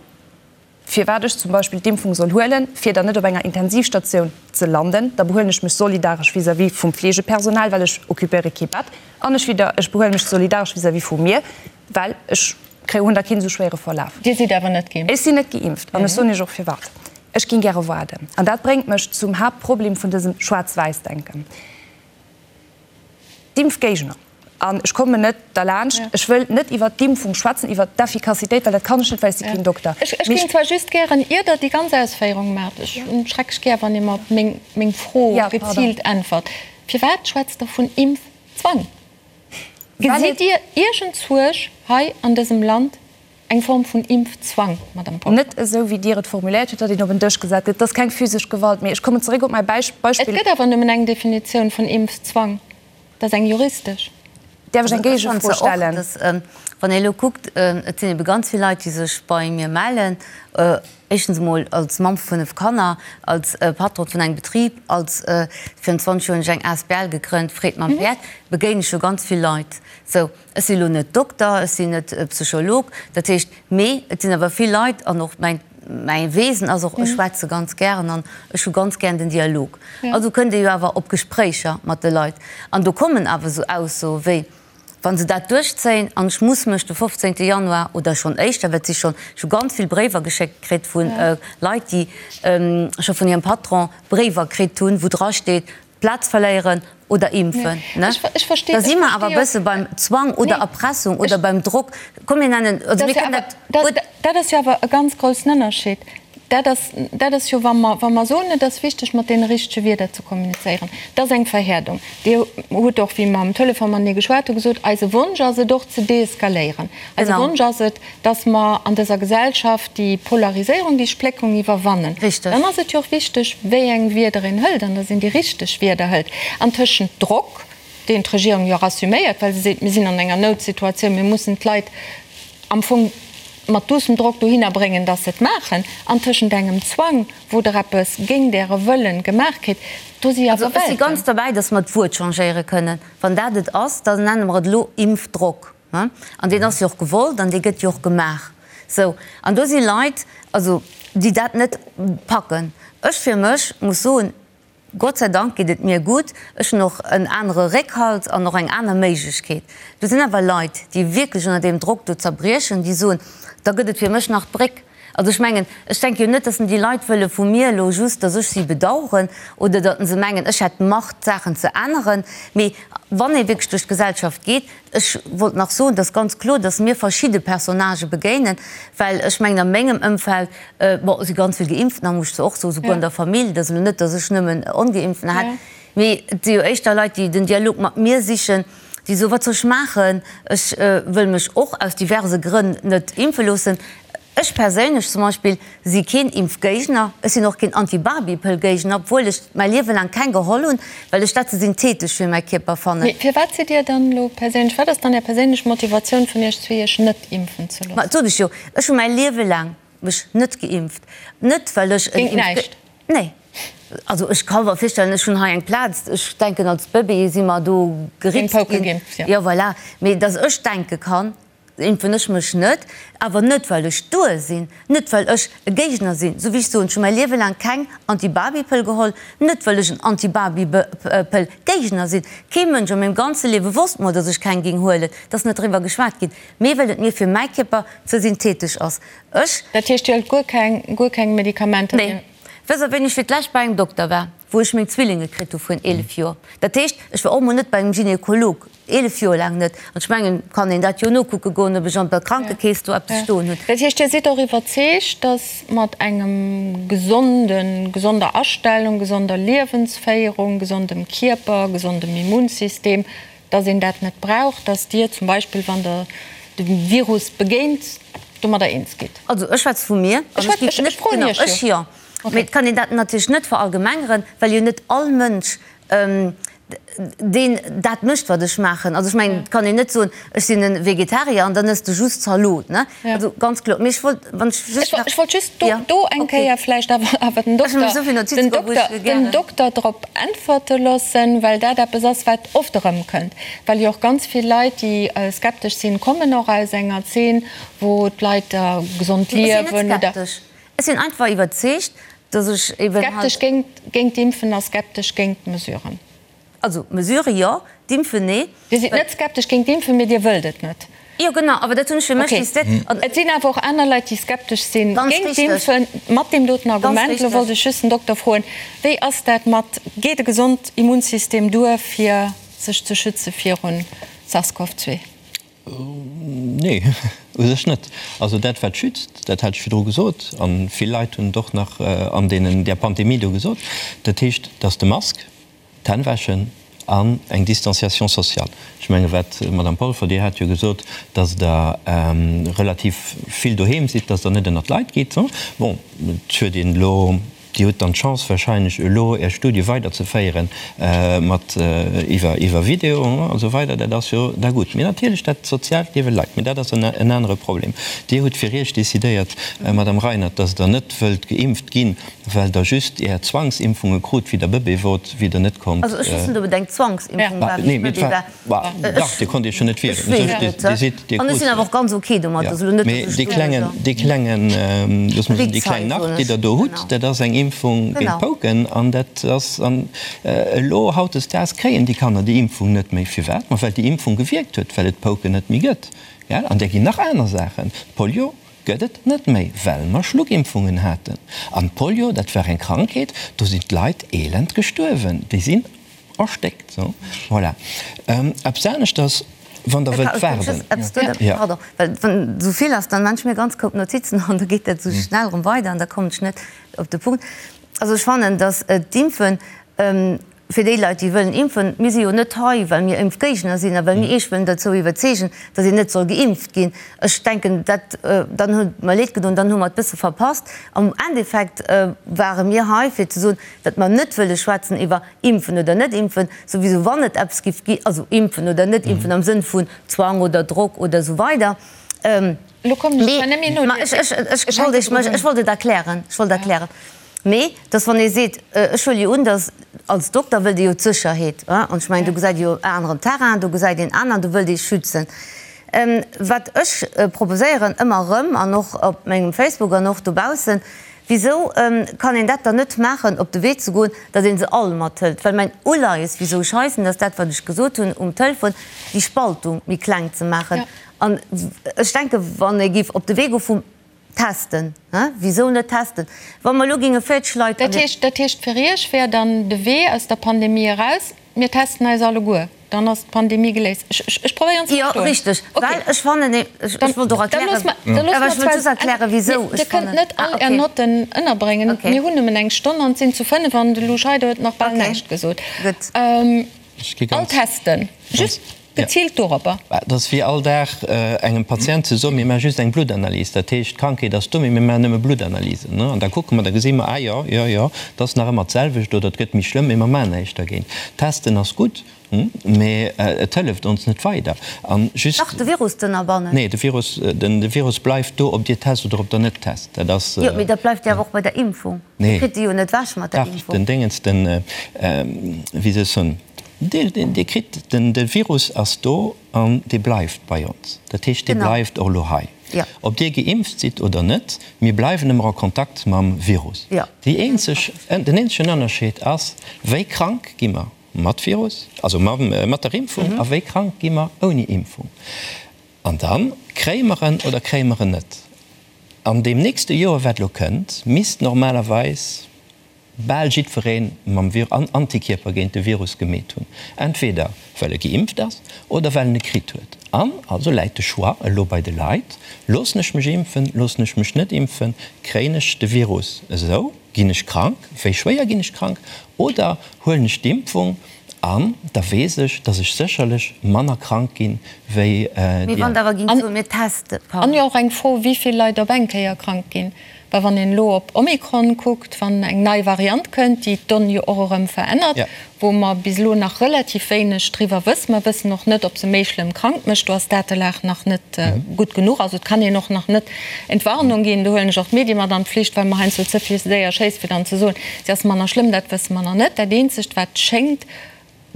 firwat ech zum Beispill d'Impfung soll huelen, fir dann net op enger Intensivstatioun ze landen, da behuelen ech mech solidaresch vis-à-vis vum Fleegepersonal, well ech occupéiere kee Bett, an ech widder, ech behuele mech solidaresch vis-à-vis vu mir, well ech kréie, hunn da keen esou schwéiere Verlaf. Dir sidd awer net geimpft? Ech sinn net geimpft an ech soen Iech och firwat. Ech géing gäre waarden. An dat bréngt mech zum Haaptproblem vun dësem Schwaarz-Wäiss-Denken. D'Impfgéigner, an ech kommen net derlaanscht, ech wëll net iwwert d'Impfung schwätzen, iwwert d'Effikassitéit, well dat kann ech net, well ech si keen Dokter. Ech géing zwar just gären, ier Der déi ganz Ausféierung maacht, ech hunn schrecklech gär, wann ee mer op meng Fro geziilt äntwert, Firwat schwätzt Der vun Impfzwang? Zwang. Gesitt Dir iergend Suerg hei an dësem Land, eng Form vun Impfzwang, Madame Polfer? Net esou, wéi Dir et formuléiert hutt, datt een op en Dësch gesat gëtt. Et ass keng physesch Gewalt. Mee ech kommen zeréck op mäi Beispill. Et gëtt awer nëmmen eng Definitioun vun Impfzwang, dat ass eng juristesch. Däerf ech eng Géigefro stellen? Wann ee elo kuckt, et sinn ebe ganz vill Leit, déi sech bei mir mellen, éischtens emol als Mamm vu 5 Kanner, als Patron vun engem Betrib, als, virun 20 Joer hunn ech eng asbl gegrënnt, Freed mam Päerd, begéine ech jo ganz vill Leit. Sou, ech sinn elo net Dokter, ech sinn net Psycholog, dat heescht, mee et sinn awer vill Leit an och mäin, mäi Wesen ass och, ech schwätze ganz gären an ech hu ganz gären den Dialog. Also kënnt ee jo awer op Gespréicher mat de Leit an do kommen awer esou Aussoe wéi, wa se dat duerchzéien an ech muss mech de 15. Januar oder schonn éischter, well et si schonn, ech hu ganz vill Bréiwer geschéckt kritt vu Leit, déi scho vun hirem Patron Bréiwer kritt hunn, wou drasteet, Plaz verléieren oder impfen, ne? Da si mer awer e bësse beim Zwang oder Erpressung oder beim Drock. Komm mir nennen, also mir kënnen dat gutt. Dat ass jo awer e ganz groussen Ënnerscheed. Dat ass, dat ass jo, wa mer, wa mer soen, et ass wichteg, mat deene richtege Wierder ze kommunizéieren, dat ass eng Verhäerdung. Dir hutt och, wéi mer am Telefon matenee geschwat hunn, gesot, eise Wonsch ass et och ze deeskaléieren. Eise Wonsch ass et, dass mer an dëser Gesellschaft déi Polariséierung, déi Spléckung iwwerwannen, dann ass et jo och wichteg, wéi eng Wierder een hëlt an dass een déi richteg Wierder hëlt. An tëschent Drock, deen d'Regierung jo och assuméiert, well se seet, mir sinn an enger Noutsituatioun, mir mussen d'Leit am Fong mat duussem Drock dohinner bréngen, dass se et maachen, an tëschent engem Zwang, wou Der eppes géint Äre Wëllen gemaach kritt, do si awer Welten. Also ech si ganz derbäi, dass mer d'Wuert changéiere kënnen. Wann dat et ass, da nenne mer et elo Impfdrock. An deen ass jo och gewollt an dee gëtt jo och gemaach. Sou, an do si Leit, also déi dat net packen. Ech fir mech muss soen, Gott sei Dank geet et mir gutt, ech hunn och en anere Réckhalt an och eng aner Méiglechkeet. Do sinn awer Leit, déi wierklech ënner deem Drock do zerbriechen, déi soen, da gëtt et fir mech nach d'Bréck. Also ech mengen, ech denke jo net, datt déi Leit wëlle vu mir elo just, datt ech si bedauern oder datt se mengen, ech hätt d'Macht, d'Saachen ze änneren. Mee wann ee wierklech duerch d'Gesellschaft geet, ech wollt nach soen, et ass ganz kloer, datt mir verschidde Personnagë begéinen, well ech mengen a mengem Ëmfeld, bon, si ganz vill Geimpftener, muss ech zwar och soen, souguer an der Famill, et ass elo net, datt ech nëmmen Ongeimpftener hätt, mee et si jo éischter Leit, déi den Dialog mat mir sichen, déi soen, wat soll ech maachen, ech wëll mech och aus diverse Grënn net impfe loossen. Ech perséinlech zum Beispill si keen Impfgéigner, ech sinn och keen Anti-Barbie-Pëll-Géigner, obwuel ech mäi Liewe laang keng geholl hunn, well ech dat ze synthetesch fir mäi Kierper fannen. Mee firwat sidd Dir dann elo perséinlech, wat ass dann Är perséinlech Motivatioun vun Iech zwee, Iech net impfen ze loossen? Ma dat sot ech jo, ech hu mäi Liewe laang mech net geimpft, net well ech en Géint näischt? Nee. Also ech ka mer virstellen, ech hunn hei eng Plaz, ech denken als Bëbee si mer do geritzt ginn. Jo voilà, mee datt ech denke kann, impfen ech mech net, awer net well ech duer sinn, net well ech e Géigner sinn. Esou wéi ech soen, ech hu mäi Liewe laang keng Anti-Baby-Pëll geholl, net well ech en Anti-Baby-Pëll-Géigner sinn. Kee Mënsch a mengem ganze Liewe wosst mol, datt ech keng géing huelen, et ass net driwwer geschwat ginn, mee well et mir fir mäi Kierper ze synthetesch ass. Ech. Dat heescht, Dir hëlt guer keng, guer keng Medikamenter? Nee. Wësst Der, wéini ech fir d'lescht bei engem Dokter war? Wou ech meng Zwillinge kritt hu vrun 11 Joer. Dat heescht, ech war och mol net bei engem Gynekolog, 11 Joer laang net. An ech mengen, kann een dat jo nokucke goen, ob ech an der Krankekeess do eppes stoen hunn. Dat heescht, Dir sidd och iwwerzeegt, datt mat engem gesonden, gesonder Astellung, gesonder Liewensféierung, gesondem Kierper, gesondem Immunsystem, datt een dat net brauch, datt Dir zum Beispill, wann Der dem Virus begéint, domadder eens gitt? Also ech schwätze vu mir, an ech géif net, genau, ech jo. Mee et kann een dat natierlech net verallgemengeren, well jo net all Mënsch deen dat mécht, wat ech maachen. Also ech mengen, et kann een net soen, ech sinn e Vegetarier an dann ëss de just Zalot, ne? Also ganz kloer. Mee ech wollt, wann ech just nach. Ech wollt just do, do eng Kéier vläicht awer, awer den Dokter, den Dokter, den Dokter drop äntwerte loossen, well dat eppes ass, wat oft erëmkënnt. Well jo och ganz vill Leit, déi skeptesch sinn, kommen och aus enger Zeen, wou d'Leit gesond liewen oder. Ech sinn net skeptesch. Ech sinn einfach iwwerzeegt, dass ech eben halt. Skeptesch géint, géint d'Impfen a skeptesch géint d'Mesuren. Also d'Mesurë jo, d'Impfen nee. Dir sidd net skeptesch géint d'Impfen, mee Dir wëllt et net. Jo genau, awer dat hunn ech fir mech décidéiert. Okay. Et sinn awer och aner Leit, déi skeptesch sinn géint d'Impfen, mat deem doten Argument. Elo wollt ech just den Dokter froen, Wéi ass dat mat, geet e gesond Immunsystem duer, fir sech ze schütze virun SARS-CoV-2? Nee, u sech net. Also dat wat schützt, dat hat ech virdru gesot, a vill Leit hunn et och nach an deenen, där Pandemie do gesot, dat heescht, dass de Mask, d'Hänn wäschen. An eng Distanciation sociale. Ech menge wat, Madame Polfer, Dir hat jo gesot, datt Der relativ vill doheem sidd, datt Der net ënnert d'Leit gitt. Bon, et huet een elo, Dir hutt dann d'Chance wahrscheinlech elo Är Studie weiderzeféieren mat iwwer iwwer Video a sou weider, dat ass jo da gutt. Mee natierlech dat soziaalt Liewe leit. Mee dat ass en anere Problem. Dir hutt fir Iech decidéiert, Madame Reinert, datt Der net wëllt geimpft ginn, Well der just är Zwangsimpfunge krut wéi der Bëbee wort, wéi der net konnt. Also ech weess net ob et eng Zwangsimpfung war wéi ech Bëbee war. Dach, dir konnt iech jo net wieren. Ech weess et net. An ech sinn awer och ganz ok domat. Also elo net dass ech do. Mee dee klengen, looss mer soen, déi kleng nach, déi der do hutt, dat ass eng Impfung géint d'Pouken an dat ass, an elo hautdesdaags kréien déi Kanner déi Impfung net méi. Firwat? Ma well déi Impfung gewierkt huet, well et d'Pouken net méi gëtt. Gell? An där ginn nach aner Saachen, d'Polio. Gëtt et net méi, well mer Schluckimpfungen haten. An d'Polio, dat war eng Krankheet, do sinn d'Leit elend gestuerwen, déi sinn erstéckt. Sou, voilà. Eppes aneschters, wann Der wëllt waarden. Pardon, well wann esou vill ass, dann maan ech mir ganz koup Notizen an da geet dat esou schnell erëm weider an da kommen ech net op de Punkt. Also ech fannen, datt d'Impfen, Fir déi Leit, déi wëllen impfen, mir si jo net hei, well mir Impfgéigner sinn a well mir Iech wëllen dozou iwwerzeegen, datt een net soll geimpft ginn. Ech denken, dat, dann huet et mer leed gedoen, dann hu mer et bësse verpasst. Am Endeffekt ware mir hei, fir ze soen, datt mer net wëlle schwätzen iwwer impfen oder net impfen, souwisou wann et eppes giff gi, also impfen oder net impfen am Sënn vun Zwang oder Drock oder esou weider. Elo kommen ech zwar net méi no. Mä ech, ech wollt Iech, ech wollt et erklären, ech wollt erklären. Mee dass wann ee seet, ech huele jo un, dass als Dokter wëllt ee jo d'Sécherheet, an ech mengen do gesäit ee jo en aneren Terrain, do gesäit een aner an do wëllt ee schützen. Wat ech proposéieren ëmmer erëm an och op mengem Facebook an och dobaussen, wisou kann een dat dann net maachen, op de Wee ze goen, datt ee se all mathëlt? Well mäin Uleies, wisou ech hei sinn, ass dat wat ech gesot hunn um Telefon, déi Spaltung méi kleng ze maachen. An ech denke wann ee géif op de Wee goe vum Testen, he? Wisou net testen? Wa mer elo géinge 40 Leit an. Dat heescht, dat heescht fir Iech wär dann de Wee aus der Pandemie eraus, mir testen eis alleguer, dann ass d'Pandemie geléist. Ech, ech, ech probéieren ze Jo, verstoen. richteg. Okay. Well ech fannen, ech, ech wollt och Dann erklären, loosse mer, da loosse awer mer ech wollt zwar, just erklären, wisou Dir ech kënnt fannen. net Ah, all Är okay. Notten ënnerbréngen. Okay. Mir hunn nëmmen eng Stonn an et sinn zu 5 an de Lou Scheider huet nach bal Okay. näischt gesot. Gutt. Ech gi All ganz. testen, just. Geziilt doropper. Dat ass wéi all Dag engem Patient ze soen, mir maache just eng Bluttanalys. Dat heescht, d'Krankheet ass do, mee mir maachen nëmme Bluttanalysen. An da kucke mer, da gesi mer, ah jo, jo, jo, et ass nach ëmmer d'selwecht oder et gëtt méi schlëmm, mee mer maachen näischt dergéint. Testen ass gutt, mee et hëlleft ons net weider. An just. Dach, de Virus z'ënnerbannen. Nee, de Virus, de Virus bleift do, ob Dir test oder ob Der net test. Dat ass. Jo, mee dat bleift jo awer och bei der Impfung. Dir kritt se jo net ewech mat der Dach, Impfung. den Déngens, den, wéi soll ech soen, Dir kritt den, de Virus ass do an dee bleift bei ons. Dat heescht, dee bleift och elo hei. Ob Dir geimpft sidd oder net, mir bleiwen ëmmer a Kontakt mam Virus. Déi eenzeg, den eenzegen Ënnerscheed ass, wéi krank gi mer mat Virus, also mat der Impfung, a wéi krank gi mer ouni Impfung. An da kréie mer en oder kréie mer en net. An deem nächste Joer, wat elo kënnt, misst normalerweis bal jiddweree mam an Antikierper géint de Virus gemeet hunn, entweder well e geimpft ass oder well en e kritt huet. An also läit de Choix elo bei de Leit, Loossen ech mech impfen, loossen ech mech net impfen, kréien ech de Virus esou, ginn ech krank, wéi schwéier ginn ech krank, oder huelen ech d'Impfung an da weess ech, datt ech sécherlech manner krank ginn, wéi déi aner. Mee wann der awer géingt soen, mir testen, An jo och eng Fro, wéi vill Leit op eng Kéier krank ginn. Well wann een elo op Omikron kuckt, wann eng nei Variant kënnt, déi d'Donn jo och erëm verännert, wou mer bis elo nach relativ wéineg driwwer wëssen, mer wëssen och net, ob se méi schlëmm krank mécht, do ass d'Datelag nach net gutt genuch, also et kann een och nach net Entwarnung ginn, do huelen ech och d'Medie mat an d'Pflicht, well mer heiansdo ze vill séier schéisse fir dann ze soen, se ass manner schlëmm, dat wësse mer nach net. Dat eenzegt wat schéngt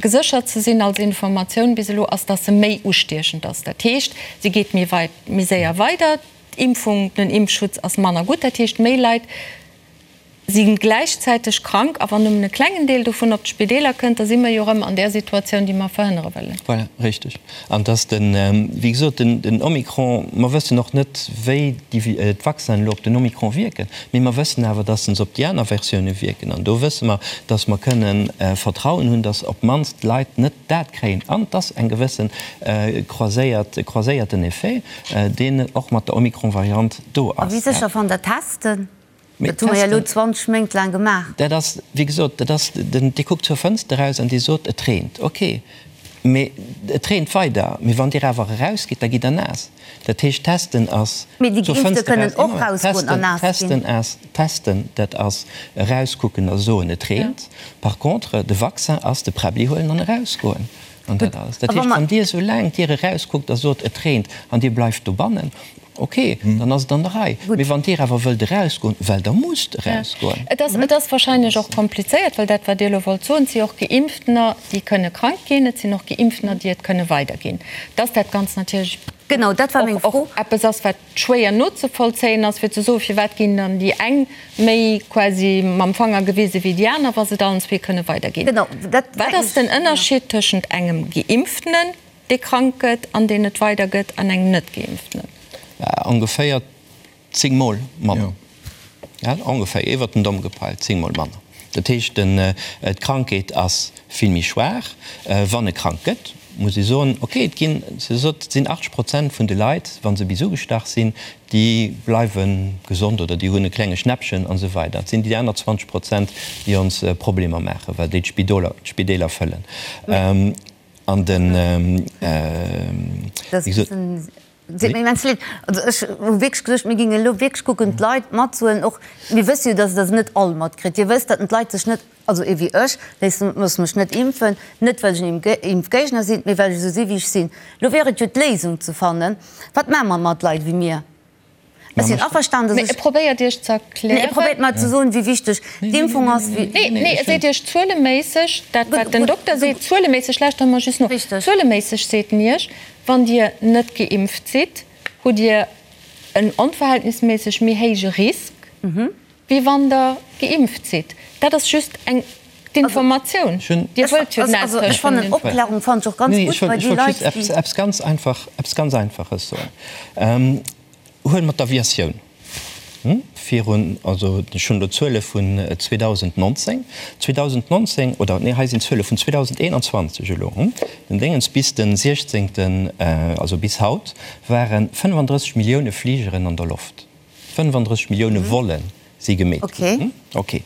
geséchert ze sinn als Informatioun bis elo, ass, datt se méi ustiechend ass. Dat heescht, se geet méi weit, méi séier weider. D'Impfung, den Impfschutz ass manner gutt, dat heescht méi Leit si gläichzäiteg krank a wann nëmmen e klengen Deel dovun op d'Spideeler kënnt, da si mer jo erëm an där Situatioun, déi mer verhënnere wëllen. Voilà, richteg. An dass den, wéi gesot, den Omikron, mer wëssen och net, wéi déi d'Vaccinen elo op den Omikron wierken, mee mer wëssen awer, dass se op déi aner Versioune wierken. An do wësse mer, dass mer kënnen Vertrauen hunn, dass op d'mannst d'Leit net dat kréien an dass eng gewësse croiséiert, croiséierten Effet, deen och mat der Omikron-Variant do ass. A wéi sécher fannt Der Testen? Dat hu mer jo elo 20 Méint laang gemaach. Dat ass, wéi gesot, dat ass den, Dir kuckt zur Fënster eraus an Dir sot, et reent. Okay, mee et reent weider. Mee wann Dir awer erausgitt, da gitt Der naass. Dat heescht, testen ass Mee déi zur Geimpfte Fënster kënnen eraus, och Moment, rausgoen an testen, naass ginn. testen ass, testen, dat ass erauskucken a soen, et reent. Par contre, de Vaccin ass de Präbbli huelen an erausgoen. An dat alles. Dat heescht, wann Dir esoulaang d'Dier erauskuckt a sot, et reent, an Dir bleift dobannen, ok, dann ass et an der Rei. Mee wann Dir awer wëllt erausgoen, well Der musst erausgoen. Et ass, et ass wahrscheinlech och komplizéiert, well dat, wat Dir elo wollt soen, et si och Geimpftener, déi kënne krank ginn, et sinn och Geimpftener, déi et kënne weiderginn, dass dat Ganzt natierlech och eppes ass, wat schwéier nozevollzéien ass, fir ze soen, firwat ginn dann déi eng méi quasi mam Fanger gewise wéi déi aner, wa se et allen zwee kënne weiderginn. Wat ass den Ënnerscheed tëschent engem Geimpftenen, dee krank gëtt an deen et weidergëtt, an engem Net-Geimpftenen? Ongeféier zéngmol manner. Ongeféier, iwwert den Domm gepeilt, zéngmol manner. Dat heescht, d'Krankheet ass vill méi schwaach. Wann e krank gëtt, muss ee soen, okay, et ginn, se sot, et sinn 80 Prozent vun de Leit, wa se bis ugestach sinn, déi bleiwe gesond oder déi hunn e klenge Schnäppchen an esou weider. Et sinn déi aner 20 Prozent, déi ons Problemer maachen, well déi d'Spideeler fëllen. An den, wéi gesot. Seet mir immens leed. Also ech hu wierklech geduecht, mir géingen elo wierklech kucken, d'Leit matzehuelen. Och mir wësse jo, dass Der se net all matkritt. Dir wësst, datt d'Leit sech net, also ee wéi ech, léissen, loosse mech net impfen, net well ech en Impfgéigner sinn, mee well ech esou si wéi ech sinn. Elo wier et jo d'Léisung ze fannen, Wat maache mer mat Leit wéi mir? Ech sinn averstanen, dass Mee ech. e probéiert Iech ze erklären. Nee, e probéiert mer ze soen, wéi wichteg d'Impfung ass, wéi. Nee, nee, e seet Iech zueleméisseg, dat wat den Dokter seet, zueleméisseg, lauschtert mer just no, zueleméisseg seet en Iech, Wann Dir net geimpft sidd, hutt Dir en onverhältnisméisseg méi héije Risk, wéi wann Der geimpft sidd. Dat ass just eng d'Informatioun. Dir wëllt jo näischt Ech fannen Opklärung fannen ech och ganz gutt bei déi Leit, déi. Ech wollt just eppes ganz Einfaches soen. Huele mer d'Aviatioun virun, also ech hunn elo d'Zuele vun 2019, 2019, oder nee, hei sinn d'Zuele vun 2021 elo, den Déngens, bis de 16., also bis haut, ware 35 Millioune Fligeren an der Loft. 35 Millioune Volle si gemeet ginn. Okay.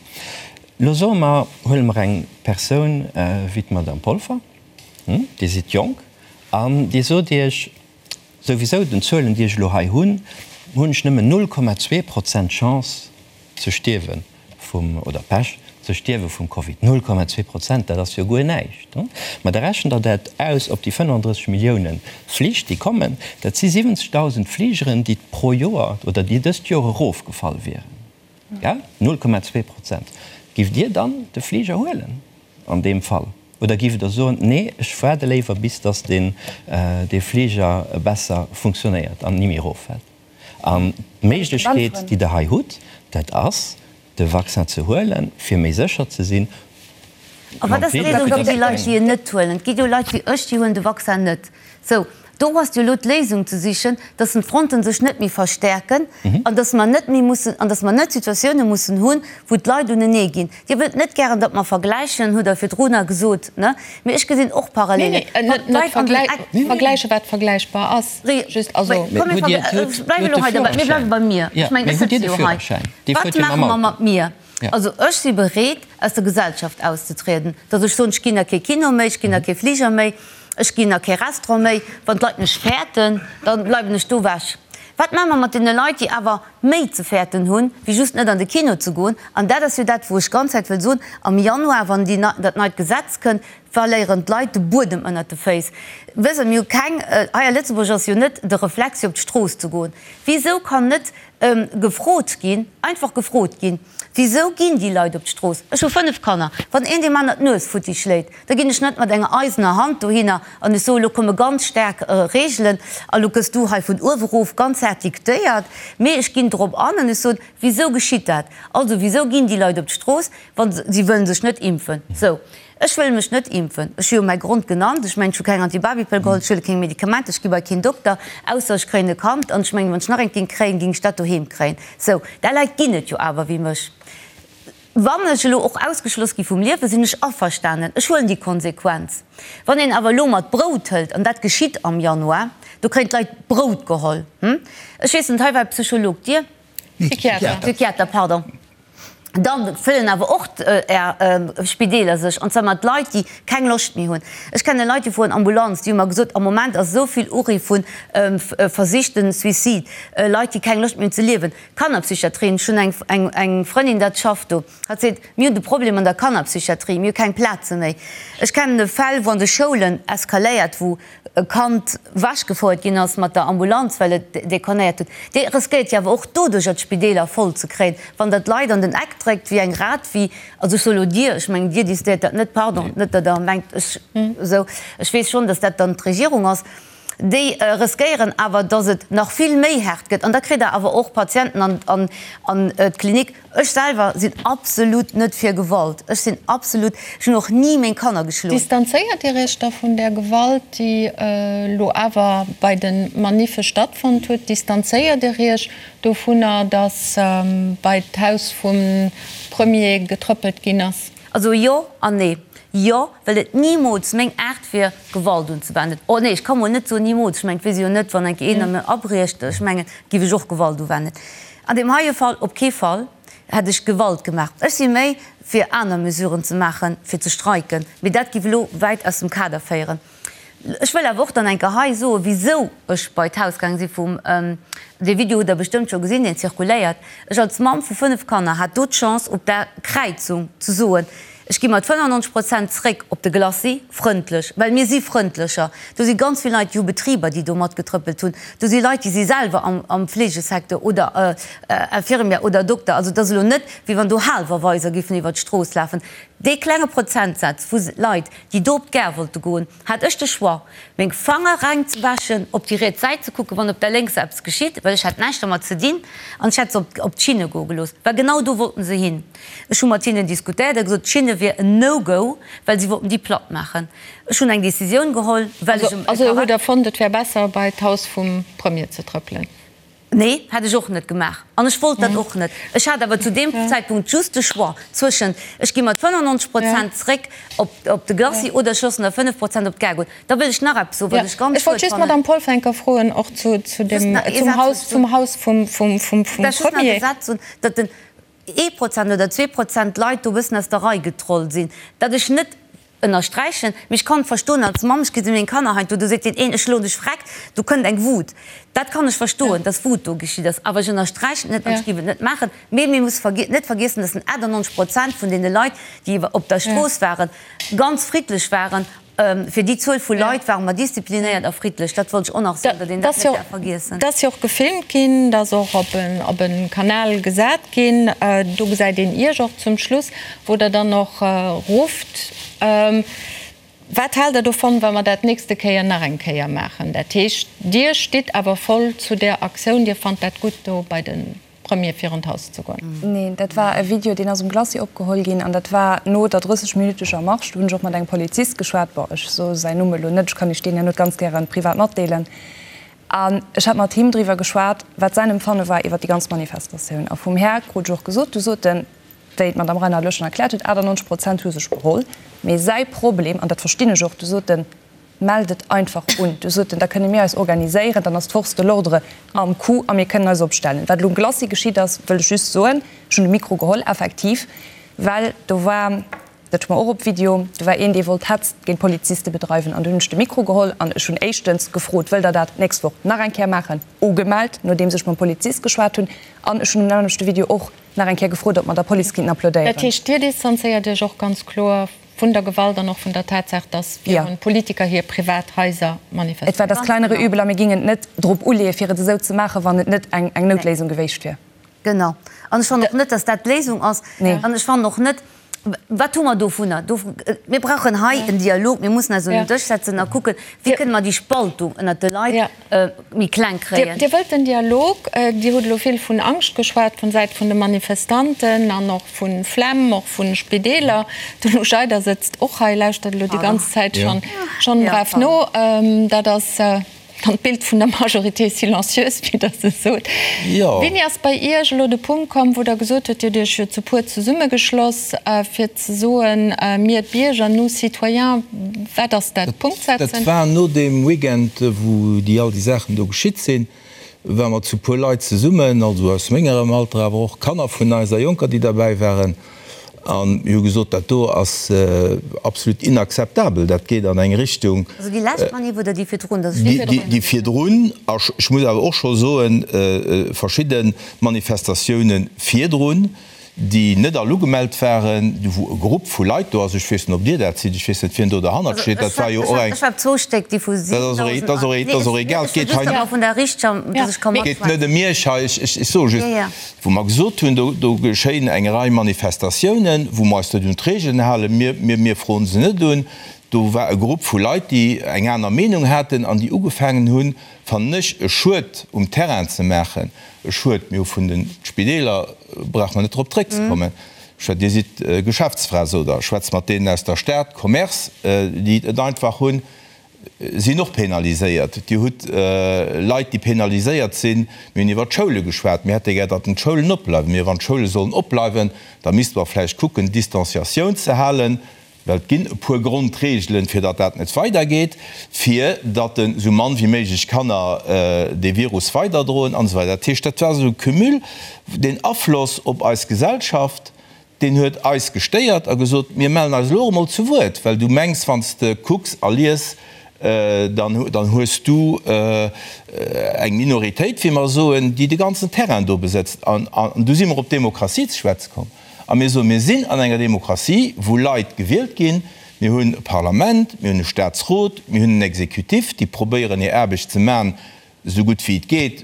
Elo soe mer, huele mer eng Persoun wéi d'Madame Polfer, Dir sidd jonk an Dir sot Iech, Souwisou, den Zuelen déi ech elo hei hunn, hunn ech nëmmen 0,2 Prozent Chance ze stierwe vum, oder Pech, ze stierwe vum Covid. 0,2 Prozent, dat ass jo guer näischt. Mä da rechent Der dat aus op déi 35 Millioune Flich déi kommen, dat si 70.000 Fligeren, déi pro Joer oder déi dëst Joer erofgefall wieren. Gell? 0,2 Prozent. Giff Dir dann de Fliger huelen an deem Fall? Oder giff Der soen, nee, ech waarde léiwer bis datt deen, dee Fliger besser funktionéiert an ni méi eroffält? An d'Méiglechkeet, déi Der hei hutt, dat ass, de Vaccin ze huelen, fir méi sécher ze sinn. A wat ass d'Léisung fir déi Leit, déi en net huelen? Et gi jo Leit wéi ech, déi huelen de Vaccin net. Sou, do ass jo elo d'Léisung ze sichen, dass d'Fronten sech net méi verstärken an dass mer net méi mussen, an dass mer net Situatioune mussen hunn, wou d'Leit unenee ginn. Dir wëllt net gären, datt mer vergläichen, hutt Der virdrunner gesot, ne? Mee ech gesinn och Parallelen. Nee, nee, net vergläichen, wat vergläichbar ass. Just, also. Komm, mir bleiwen elo hei derbäi. Mir bleiwe bei mir. Ech mengen, ech sëtze jo hei. Wat maache mer mat mir? Also ech si bereet, aus der Gesellschaft auszetrieden, datt ech soen, ech ginn a kee Kino méi, ech ginn a kee Fliger méi, ech ginn a kee Restaurant méi. Wann d'Leit mech fäerten, da bleiwen ech do ewech. Wat maache mer mat deene Leit, déi awer méi ze fäerten hunn, wéi just net an de Kino ze goen? An dat ass jo dat, wou ech ganz Zäit wëll soen, Am Januar, wann déi, dat neit Gesetz kënnt, verléieren d'Leit de Buedem ënnert de Féiss. Wësst Der, mir hu keng, hei a Lëtzebuerg ass jo net de Reflex, fir op d'Strooss ze goen. Wisou kann net gefrot ginn, einfach gefrot ginn, Wisou ginn déi Leit op d'Strooss? Ech hu 5 Kanner. Wann een deem aner d'Nues futti schléit, da ginn ech net mat enger eisener Hand dohinner an ech soen, elo komme ganz staark Reegelen a lo gëss du hei vun uewe erof ganz haart diktéiert. Mee ech ginn drop an an ech soen, Wisou geschitt dat? Also, wisou ginn déi Leit op d'Strooss, wa si wëllen sech net impfen? Sou. Ech wëll mech net impfen. Ech hu jo mäi Grond genannt. Ech mengen, ech hu keng Antibabipëll geholl, ech huele keng Medikamenter, ech gi bei keen Dokter, ausser ech kréien e Kand. An ech mengen, wann ech nach eent géing kréien, géing ech dat doheem kréien. Sou, där Leit ginn et jo awer wéi mech. Wann ech elo och ausgeschloss gi vum Liewen, sinn ech averstanen. Ech huelen déi Konsequenz. Wann een awer elo mat Brout hëlt, an dat geschitt am Januar, do kréien d'Leit Brout geholl. Ech weess net, hei war e Psycholog, Dir? Psychiater. Psychiater, pardon. Dann fëllen awer och Är Spideeler sech, an zwar mat Leit, déi keng Loscht méi hunn. Ech kenne Leit, déi fueren Ambulanz, déi hu mer gesot, am Moment ass esou vill Uriff vu versichten Suicide, Leit, déi keng Loscht méi hunn ze liewen. Kannerpsychiatrien, ech hunn eng eng Frëndin, dat schafft do, hatt seet, mir hunn de Problem an der Kannerpsychiatrie, mir hu keng Plaze méi. Ech kennen Fäll, wou an de Schoulen eskaléiert, wou e Kand wechgefouert ginn ass mat der Ambulanz, well et dekonnéiert huet, Dir riskéiert jo awer och doduercher d'Spideeler voll ze kréien, wann Der d'Leit an den Eck dréckt wéi eng Rat, wéi, also ech soe lo Dir, ech mengen Dir décidéiert dat net, pardon, net datt Der mengt ech esou, ech weess schonn, datt dat dann d'Regierung ass, déi riskéieren awer, datt et nach vill méi haart gëtt an da kritt Der awer och Patienten an an d'Klinik. Ech selwer sinn absolut net fir Gewalt. Ech sinn absolut, ech hunn och ni meng Kanner geschloen. Distanzéiert Dir Iech da vun där Gewalt, déi elo awer bei de Maniffe stattfonnt huet? Distanzéiert Dir Iech dovunner, datt bei d'Haus vum Premier getrëppelt ginn ass? Also jo an nee. Jo, well et nimools meng Aart wier, Gewalt unzewenden. Oh nee, ech ka mol net soen nimools. Ech mengen, et weess ee jo net, wann eng Kéier een a mir abriecht, ech mengen, giff ech och Gewalt uwennen. An deem heie Fall op kee Fall hätt ech Gewalt gemaach. Ech si méi fir aner Mesuren ze maachen, fir ze streiken, mee dat giff elo wäit aus dem Kader féieren. Ech wëll awer och dann eng Kéier hei soen, wisou ech bei d'Haus gaange si vum, dee Video hutt Der bestëmmt scho gesinn, deen zirkuléiert. Ech als Mamm vu 5 Kanner hat do d'Chance op der Kräizung ze soen, Ech gi mat 95 Prozent zréck op de Glacis, frëndlech, well mir si frëndlecher. Do si ganz vill Leit, déi hu Betriber, déi do matgetrëppelt hunn. Do si Leit, déi si selwer am Fleegesecteur oder Infirmière oder Dokter. Also et ass elo net, wéi wann do Haalwerweiser giffen iwwert d'Strooss lafen. Dee klenge Prozentsaz vu Leit, déi do op d'Gare wollte goen, hat ech de Choix, meng Fanger reng ze wäschen, op déi riets Säit ze kucken, wann op der lénkser eppes geschitt, well ech hat näischt dermat ze dinn, an ech hätt se op d'Schinne goe gelooss, well genau do wollten se hin. Ech hu mat hinnen diskutéiert a gesot, d'Schinne wier en No-Go, well si wollten déi platt maachen. Ech hunn eng Decisioun geholl, well ech e Also hutt Der fonnt, et wär besser, bei d'Haus vum Premier ze trëppelen? Nee, hätt ech och net gemaach. An ech wollt dat och net. Ech hat awer zu deem Zäitpunkt just de Choix zwëschent, ech gi mat 95 Prozent zréck op de Glacis oder ech loossen der 5 Prozent op d'Gare goen. Da wëll ech nach eppes soen, wat ech ganz schued fannen. Ech wollt just d'Madame Polfer froen, och zu dem, zum Haus, zum Haus vum Premier. Just nach e Saz soen, datt den ee Prozent oder 2% Leit do e bëssen aus der Rei getrollt sinn, dat ech net ënnersträichen, mee ech kann verstoen als Mamm, ech gesi meng Kanner heiansdo, do seet deen een, ech schloen dech vreckt, do kënnt eng Wut, dat kann ech verstoen, dass Wut do geschitt ass, awer ech ënnersträichen et net an ech géif et net maachen. Mee mir musse net vergiessen, dass 98 Prozent vun deene Leit, déi op der Strooss waren, ganz friddlech waren Fir déi Zuel vu Leit ware mer disziplinéiert a friddlech. Dat wollt ech och nach soen, datt een dat net däerf vergiessen. Dat ass jo och gefilmt ginn, dat ass och op e Kanal gesat ginn. Do gesäit een Iech och zum Schluss, wou Der dann och rufft. Wat haalt Der dovun, wa mer dat d'nächste Kéier nach eng Kéier maachen? Dat heescht, Dir stitt awer voll zu där Aktioun, Dir fannt dat gutt do bei de. Premier virun d'Haus ze goen. Neen, dat war e Video, deen ass um Glacis opgeholl ginn an dat war no der 30 minüteger Marsch. Do hunn ech och mat engem Polizist geschwat, bon, ech soe säin Numm elo net, ech kann Iech deen herno ganz gäre privat matdeelen. An ech hat mat him driwwer geschwat, wat säin Empfanne war iwwer déi ganz Manifestatioun. A vum Här krut ech och gesot, du sot en, wéi d'Madame Reinard elo schonn erkläert huet, 98 Prozent hu sech beholl, mee säi Problem, an dat verstinn ech och, du sot en, Mellt et einfach un. Du sot en, da kënne mir eis organiséieren, dann ass d'Force de l'ordre am Coup a mir kënnen eis opstellen. Wat elo um Glacis geschitt ass, wëll ech just soen, ech hunn de Mikro geholl, effektiv, well do war, dat hu mer och op Video, do war een, dee wollt Hetz géint d'Poliziste bedreiwen an du hunn ech de Mikro geholl an ech hunn éischtens gefrot, wëllt Der dat d'nächst Woch nach eng Kéier maachen? Ugemellt, nodeems ech mam Polizist geschwat hunn an ech hunn um nämmlechte Video och nach eng Kéier gefrot, ob mer der Police kinnten applaudéieren. Dat heescht, Dir distanzéiert Iech och ganz kloer Vun der Gewalt an och vun der Tatsaach, dass virun Politiker hir privat Haiser manifestéieren. Et war das kleinere Übel a mir gingen et net drop uleeën, fir et esou ze maachen, wann et net eng Noutléisung geweecht wier. Genau. An ech fannen och net, dass dat d'Léisung ass. An ech fannen och net, wat hu mer dovunner? Mir brauchen hei en Dialog. Mir mussen eis un den Dësch setzen a kucken, wéi kënne mer déi Spaltung ënnert de Leit méi kleng kréien. Dir wëllt den Dialog. Dir hutt elo vill vun Angscht geschwat vun Säit vun de Manifestanten an och vu Flemm, och vu Spideeler. De Lou Scheider sëtzt och hei, lauschtert elo déi ganz Zäit schonn brav no. Dat ass dann d'Bild vun der Majorité silencieuse, wéi Der se sot. Wéini ass bei Iech elo de Punkt komm, wou Der gesot hutt, Dir hutt Iech jo zu puer zesummegeschloss, fir ze soen, mir d'Bierger, nous citoyens, wat ass dat? Punkt setzen? Dat war no deem Weekend, wou déi all déi Saachen do geschitt sinn. Ware mer zu puer Leit zesummen, also aus mengerem Alter, awer och Kanner vun eis a Jonker, déi derbäi waren, a mir hu gesot, dat do ass absolut inakzeptabel, dat geet an eng Richtung. Also déi lescht Manif oder déi virdrun? Déi virdrun, a ech muss awer och scho soen, verschidde Manifestatioune virdrun, déi net all ugemellt waren, wou e Grupp vu Leit do ass, ech weess net, ob Dir dat sidd, ech weess net, wien do derhannert steet, dat war jo och eng. Ech war zwou Stéck, déi vu 7.000. Dat ass och egal, et geet hei net ëm Iech hei, ech soe just, wou mer gesot hunn, do geschéien eng Rei Manifestatiounen, wou mer eis net un d'Regeln halen, mir froen se net un. Do war e Grupp vu Leit, déi eng aner Meenung haten an déi ugefaangen hunn, fannen ech, e Schued um Terrain ze maachen, e Schued, mir hu vun de Spideeler, brauche mer net drop zréckzekommen, ech, Dir sidd Geschäftsfra, sot Der, schwätzt mat deenen aus der Stad, Commerce, déi et einfach hunn, sinn och penaliséiert. Dir hutt Leit, déi penaliséiert sinn. Mir hunn iwwert d'Schoule geschwat. Mir hätte gär, datt d'Schoulen opbleiwen. Mee wann d'Schoule sollen opbleiwen, da misste mer vläicht kucken, d'Distanciatioun ze halen. Well et ginn e puer Grondregelen, fir datt dat net weidergeet, fir datt esou mann wéi méiglech Kanner dee Virus weiderdroen an esou weider. Dat heescht, dat war esou e Cumul, deen Afloss op eis Gesellschaft, deen huet eis gestéiert a gesot, mir mellen eis elo och emol zu Wuert, well du mengs, wann s de kucks a lies, dann hues du eng Minoritéit, wéi mer soen, déi de ganzen Terrain do besëtzt. An du si mer op d'Demokratie ze schwätze komm. A mir soen, mir sinn an enger Demokratie, wou Leit gewielt ginn. Mir hunn e Parlament, mir hunn e Statsrot, mir hunn en Exécutif, déi probéieren hir Aarbecht ze maachen, esou gutt wéi et geet.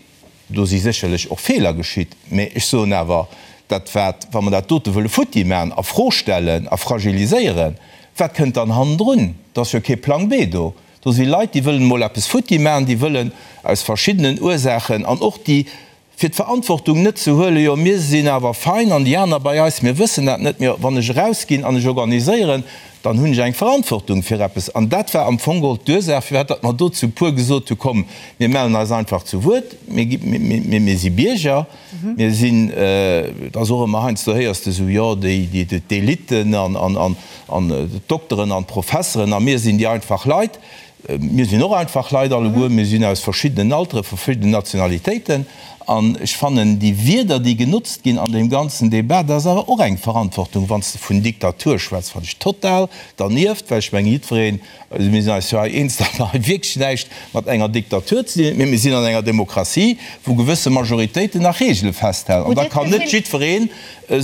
Do si sécherlech och Feeler geschitt. Mä ech soen awer, dat wat, wa mer dat dote wëlle futti maachen, a Fro stellen a fragiliséieren, wat kënnt dann hannendrun? Et ass jo kee Plang B do. Do si Leit, déi wëllen emol eppes futti maachen, déi wëllen aus verschiddenen Ursaachen an och déi Fir d'Verantwortung net ze huelen, jo mir sinn awer fein an déi aner bei eis, mir wëssen dat net, mee wann ech erausginn an ech organiséieren, dann hunn ech eng Verantwortung fir eppes. An dat war am Fong geholl d'Ursaach, firwat datt mer do zu puer gesot hu komm, mir mellen eis einfach zu Wuert, mir si Bierger, mir sinn, et ass och ëmmer heiansdo héiers de esou, jo déi d'Eliten an d'Dokteren an d'Professeren a mir sinn déi einfach Leit. Mir sinn och einfach Leit alleguer, mir sinn aus verschiddenen Altere, verschiddenen Nationalitéiten. An ech fannen, déi Wierder, déi genotzt ginn an deem ganzen Débat, dat ass awer och eng Verantwortung. Wann s de vun Diktatur schwätz, fannen ech total dernieft, well ech mengen, jiddwereen, also mir sinn eis jo hei eens, datt mer hei wierklech näischt mat enger Diktatur ze dinn hunn, mee mir sinn an enger Demokratie, wou gewësse Majoritéiten nach Regele festhalen. An da kann net jiddwereen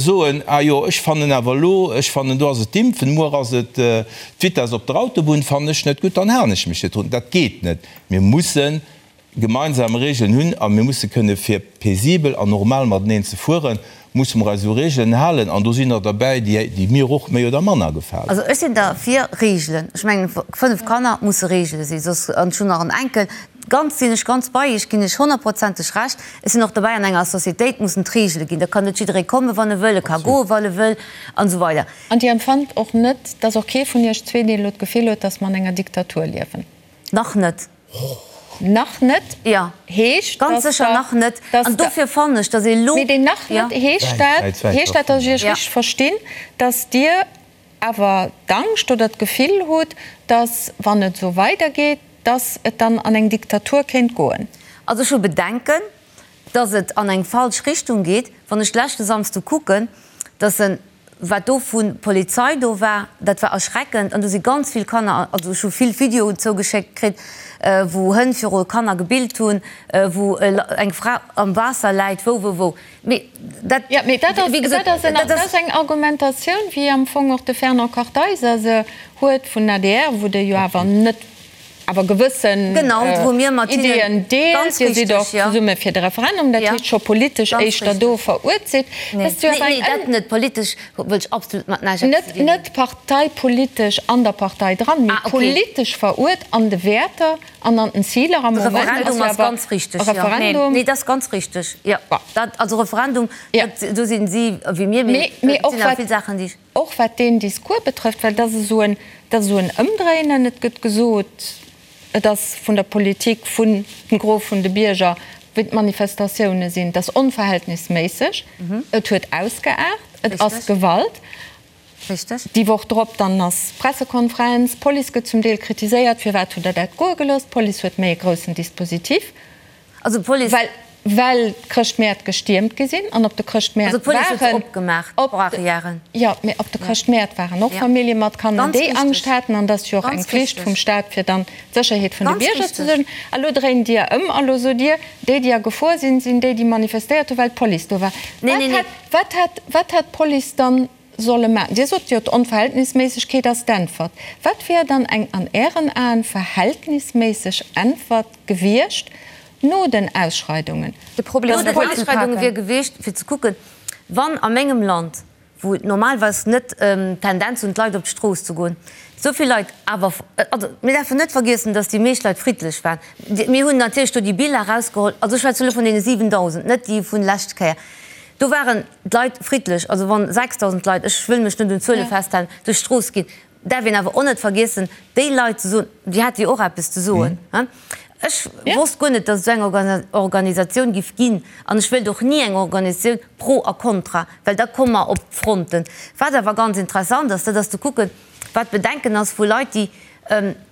soen, ah jo, ech fannen awer elo, ech fannen do ass et d'Impfen, muer ass et d'Vitess op der Autobunn, fannen ech net gutt, dann halen ech mech net drun. Dat geet net. Mir musse gemeinsam Regeln hunn a mir musse kënne fir paisibel an normal mateneen ze fueren, musse mer eis u Regeln halen an do sinn der derbäi, déi mir och méi oder manner gefalen. Also ech sinn derfir Regeln. Ech mengen, 5 Kanner musse Regele sinn, soss, an ech hunn nach en Enkel, Ganz sinn ech ganz bei Iech, ginn ech honnertprozenteg Recht. Ech sinn och dobäi, an enger Societéit mussen d'Regele ginn. Da kann net jidderee kommen, wann e wëll, e ka goen, wann e wëll, an esou weider. An Dir empfannt och net, dass och kee vun Iech zwee, deen elo d'Gefill huet, dass mer an enger Diktatur liewen? Nach net. Nach net Jo, heescht, ganz dass sécher Der, nach net. dass An Der. dofir fannen ech, dass ee elo. Mee deen nach Jo. net, heescht dat, heescht dat, dass ech Iech richteg verstinn, dass Dir awer d'Angscht oder d'Gefill hutt, dass, wann et esou weidergeet, dass et dann an eng Diktatur kéint goen? Also ech hu Bedenken, dass et an eng falsch Richtung geet. Wann ech leschte Samsde kucken, dass en, wat do vu Polizei do war, dat war erschreckend. An do si ganz vill Kanner, also ech hu vill Videoen zougeschéckt kritt, wou Hënn viru Kanner gebillt hunn, wou eng Fra am Waasser läit, wou, wou, wou. Mee dat, Jo, mee dat ass, wéi gesot, dat ass en, dat dat ass. ass eng Argumentatioun, wéi am Fong och de Fernand Kartheiser se huet vun adr, wou Der jo awer net, awer gewëssen Genau, wou mir mat hinnen, Ideeën deelt. ganz Dir sidd richtig, och jo. zesumme fir de Referendum, dat Ja, heescht scho politesch ganz éischter do richtig. veruert sidd. Nee, Dat ass jo nee, awer nee, eng dat net. Politesch wëll ech absolut mat näischt eppes net, ze dinn hunn. net parteipolitesch an der Partei dran, mee Ah, okay. politesch veruert an de Wäerter An an den Ziler am De Moment ass Referendum jo ass awer ganz richteg, e jo. Referendum. Nee, dat ass ganz richteg, jo. Dat, also Referendum, Ja. dat, do sinn si wéi mir, mee Mee et och sinn awer wat, vill Saachen, déi ech. och wat deen Discours betrëfft, well dat ass esou en, dat ass esou en Ëmdréinen. Et gëtt gesot, et ass vun der Politik, vun dem Gros vun de Bierger, wéi d'Manifestatioune sinn, et ass onverhältnisméisseg, et huet ausgeaart, et ass Richteg. Gewalt. Richteg. Déi Woch drop dann ass Pressekonferenz, d'Police gëtt zum Deel kritiséiert, firwat hutt Der dat goe gelooss? D'Police huet méi e groussen Dispositif. Also d'Police. Well, well d'Chrëschtmäert gestiermt gi sinn an op de Chrëschtmäert Also d'Police huet se waren. opgemaach, Op de, d'Barrièren. jo, mee op de Chrëschtmäert waren och Ja. Famillje mat Kanner, Ganz déi richtig. Angscht haten. An et ass jo och eng Ganz Flicht richtig. vum Staat, fir dann d'Sécherheet vun de Ganz Bierger ze richtig. suergen. A lo dréint Dir ëm a lo sot Dir, déi, déi a Gefor sinn, sinn déi, déi manifestéiert hunn, well d'Police do war. Nee, Wat nee, nee. hätt, wat hätt, wat hätt d'Police dann solle maachen? Dir sot jo, d'Onverhältnisméissegkeet ass d'Äntwert. Wat wär dann eng an Ären Aen verhältnisméisseg Äntwert gewiescht no den Ausschreidungen? De Problem No den Ausschreidunge wier gewiescht, fir ze kucken, wann a mengem Land, wou et normalerweis net d'Tendenz hunn, d'Leit op d'Strooss ze goen, esou vill Leit awer, also mir däerfen net vergiessen, datt déi meescht Leit friddlech waren. Mir hunn natierlech do déi Biller erausgeholl, also ech schwätze elo vun deene 7.000, net déi vun lescht Kéier, do waren d'Leit friddlech, also wann 6.000 Leit, ech wëll mech net un Zuele festhalen, duerch d'Strooss ginn, däerf een awer och net vergiessen, déi Leit ze soen, déi hate jo och eppes ze soen. Ech wosst guer net, datt et esou eng Organisatioun giff ginn an ech wéilt och ni eng Organisatioun pro a contra, well da komme mer op d'Fronten. Wat awer ganz interessant ass, dat ass ze kucken, wat d'Bedenken ass vu Leit, déi,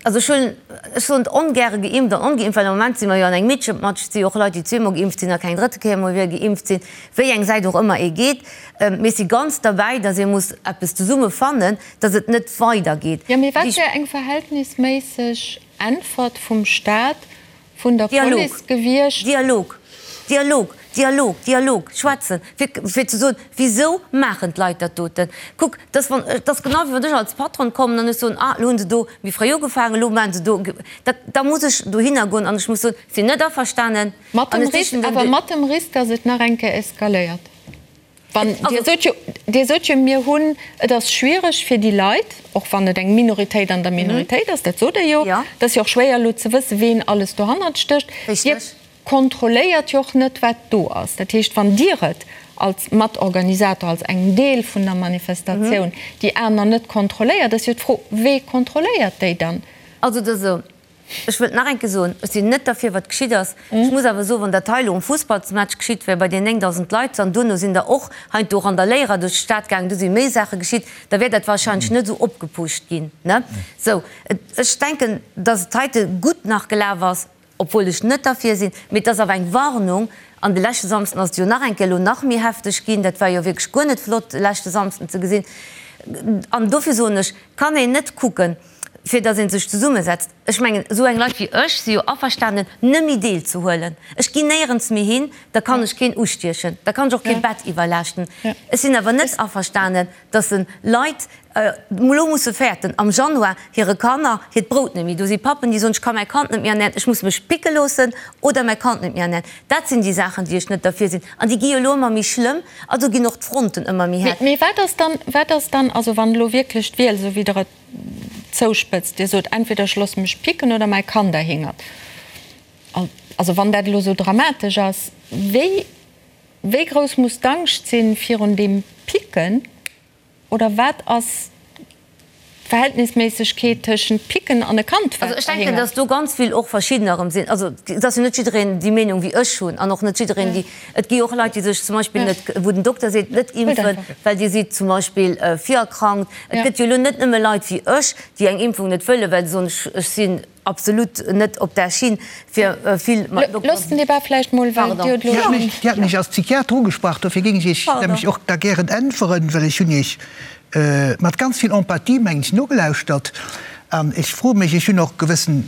also ech hunn, ech soen et ongäre geimpft an ongeimpft, well am Moment si mer jo an engem Mitschepmatsch, et si jo och Leit, déi zweemol geimpft sinn a keng drëtte Kéier méi wéi geimpft sinn, wéi eng Säit och ëmmer ee geet. Mee ech si ganz derbäi, datt ee muss eppes zesumme fannen, datt et net weidergeet. Jo, mee wat wär eng verhältnisméisseg Äntwert vum Staat, vun der Police gewiescht. Dialog, Dialog, Dialog, Dialog, schwätzen, fir, fir ze soen, Wisou maachen d'Leit dat doten? Kuck, dat ass, wann, dat ass genau wéi wann ech als Patron kommen an ech soen, Ah, elo hunn se do méi fréi ugefaangen, elo maachen se do. Dat, da muss ech dohinner goen an ech muss soen, Sinn net averstanen. Mat An dem ech Risk, sichen den awer mat dem Risk, datt et nach eng Kéier eskaléiert. Wann, Dir sot jo, Dir sot jo, mir hunn, et ass schwiereg fir déi Leit, och wann et eng Minoritéit an der Minoritéit ass, dat sot Der jo, et ass jo och schwéier elo ze wëssen, ween alles dohannert stécht. Dir kontrolléiert jo och net, wat do ass. Dat heescht, wann Dir et als Matorganisator, als engem Deel vun der Manifestatioun, déi aner net kontrolléiert, ass jo d'Fro, Wee kontrolléiert déi dann? Also et ass esou, Ech wëllt nach eng Kéier soen, ech sinn net derfir, wat geschitt ass. Ech muss awer soen, wann dat hei elo um Fussballsmatch geschitt wär, bei deenen 9.000 Leit, an duerno sinn der och heiansdo Randaléierer duerch d'Stad gaangen, do si méi Saache geschitt, da wär dat wahrscheinlech net esou opgepusht ginn, ne? Sou, ech denken, dass et heite gutt nach gelaf ass, obwuel ech net derfir sinn, mee et ass awer eng Warnung. An de leschte Samsden ass et jo nach eng Kéier elo nach méi hefteg ginn. Dat war jo wierklech guer net flott, de leschte Samsden ze gesinn. An dofir soen ech, kann een net kucken, fir datt ee sech zesummesetzt. Ech mengen, esou eng Leit wéi ech si jo averstanen, nëmme deelzehuelen. Ech ginn néierens méi hin, da kann ech keen ustiechen, da kann ech och kee Bett iwwerlaaschten. Ech sinn awer net averstanen, datt se Leit elo musse fäerten, am Januar hire Kanner hiert Brout net méi. Do si Pappen, déi soen, ech ka mäi Kand net méi ernären, ech muss mech picke loossen oder mäi Kand net méi ernären. Dat sinn déi Saachen, déi ech net derfir sinn. An déi gi jo elo ëmmer méi schlëmm, also ginn och d'Fronten ëmmer méi haart. Mee wat ass dann, wat ass dann, also wann elo wierklech d'Wiel, esou wéi Der et zouspëtzt, Dir sot, entweder ech loosse mech picken oder mäi Kand erhingert. Also wann dat elo esou dramatesch ass, wéi, wéi grouss muss d'Angscht sinn virun deem Picken? Oder wat ass d'Verhältnisméissegkeet tëschent Picken an e Kand, wat Also ech denken, erhingert? datt do ganz vill och verschiddener erëm sinn. Also et ass jo net jiddereen déi Meenung wéi ech hunn an och net jiddereen déi, et gi jo och Leit, déi sech zum Beispill net, wou den Dokter seet, net impfen, well Dir sidd zum Beispill virerkrankt. Et gëtt jo elo net nëmme Leit wéi ech, déi eng Impfung net wëllen, well se soen, ech sinn absolut net op där Schinn, fir vill mat Dokteren. Loosst den Débat vläicht mol, well Dir hutt elo schonn. Dir hat mech als Psychiater ugesprach, dofir géing ech Iech nämlech och da gären äntweren, well ech hunn Iech mat ganz vill Empathie, mengen ech, nogelauschtert. An ech froe mech, ech hunn och gewëssen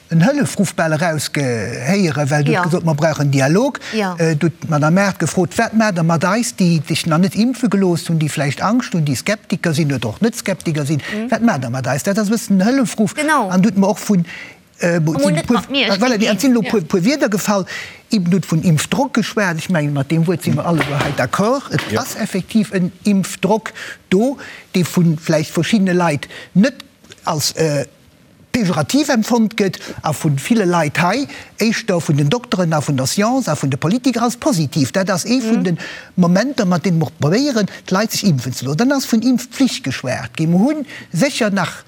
en Hëllefruff bal erausgehéieren, well Der hutt gesot, mer brauchen Dialog. Du hutt d'Madame Mart gefrot, Wat maacht Der mat eis, déi sech nach net impfe gelooss hunn, déi vläicht Angscht hunn, déi Skeptiker sinn oder och net Skeptiker sinn? Wat maacht Der mat eis? Dat ass e bëssen en Hëllefruff. An du hutt mer och vun, voilà, et sinn elo e puer Wierder gefall. Eben hutt vun Impfdrock geschwat. Ech mengen, mat deem Wuert si mer alleguer hei d'accord. Et ass effektiv en Impfdrock do, dee vu vläicht verschiddene Leit net als pejorativ empfonnt gëtt a vu ville Leit hei, éischter vun den Dokteren a vun der Science a vun de Politiker, als positiv. Dat ass ee vun de Momenter, mat deene mer och probéieren, d'Leit sech impfen ze loossen. Dann ass vun Impfpflicht geschwat ginn. Mer hu sécher nach.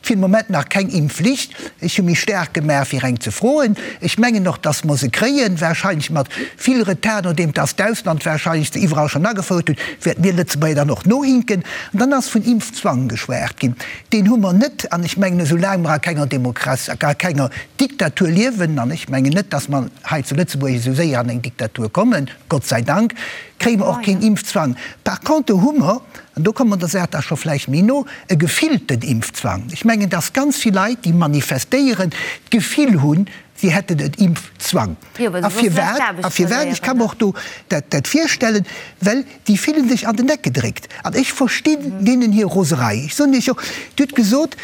Fir de Moment nach keng Impfflicht. Ech hu mech staark gemaach, fir eng ze froen. Ech mengen och, dass mer se kréien, wahrscheinlech mat vill Retard, nodeem dass d'Ausland wahrscheinlech se iwwerall schonn agefouert huet, wäerte mir Lëtzebuerger dann och nohinken. An dann ass vun Impfzwang geschwat ginn. Deen hu mer net. An ech mengen, esou laang mer a kenger Demokratie, a kenger Diktatur liewen, an ech mengen net, dass mer hei zu Lëtzebuerg esou séier an eng Diktatur kommen, Gott sei Dank, kréie mer och keen Impfzwang. Par contre hu mer, an do komme mer der Saach da scho vläicht méi no, e gefillten Impfzwang. Ech mengen, dass ganz vill Leit, déi manifestéieren, d'Gefill hunn, si hätten en Impfzwang. A firwat? A firwat? Ech ka mer och do dat virstellen, well déi fillen sech an den Eck gedréckt. An ech verstinn deenen hir Roserei. Ech soen Iech och, Dir hutt gesot,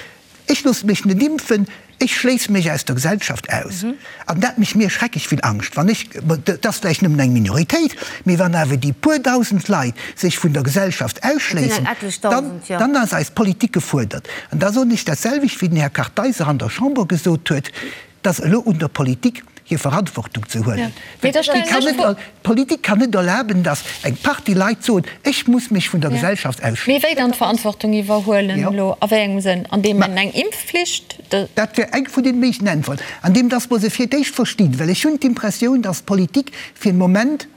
Ech loosse mech net impfen, ech schléisse mech aus der Gesellschaft aus. An dat mécht mir schrecklech vill Angscht, wann ech, dat ass vläicht nëmmen eng Minoritéit, mee wann awer déi puer dausend Leit sech vun der Gesellschaft ausschléissen, dann, dann ass eis Politik gefuerdert. An da soen ech dat selwecht, wéi den Här Kartheiser an der Chamber gesot huet, Et ass elo un der Politik, hir Verantwortung ze huelen. D'Politik kann net erlaben, datt eng Partie Leit soen, ech muss mech vun der Gesellschaft ausschléissen. Mee wéi dann d'Verantwortung iwwerhuelen elo? A wéi engem Sënn? An deem een eng Impfflicht? Dat wär eng vun den méiglechen Äntwerten. An deem, datt mer se fir d'éischt verstinn. Well ech hunn d'Impressioun, datt d'Politik fir den Moment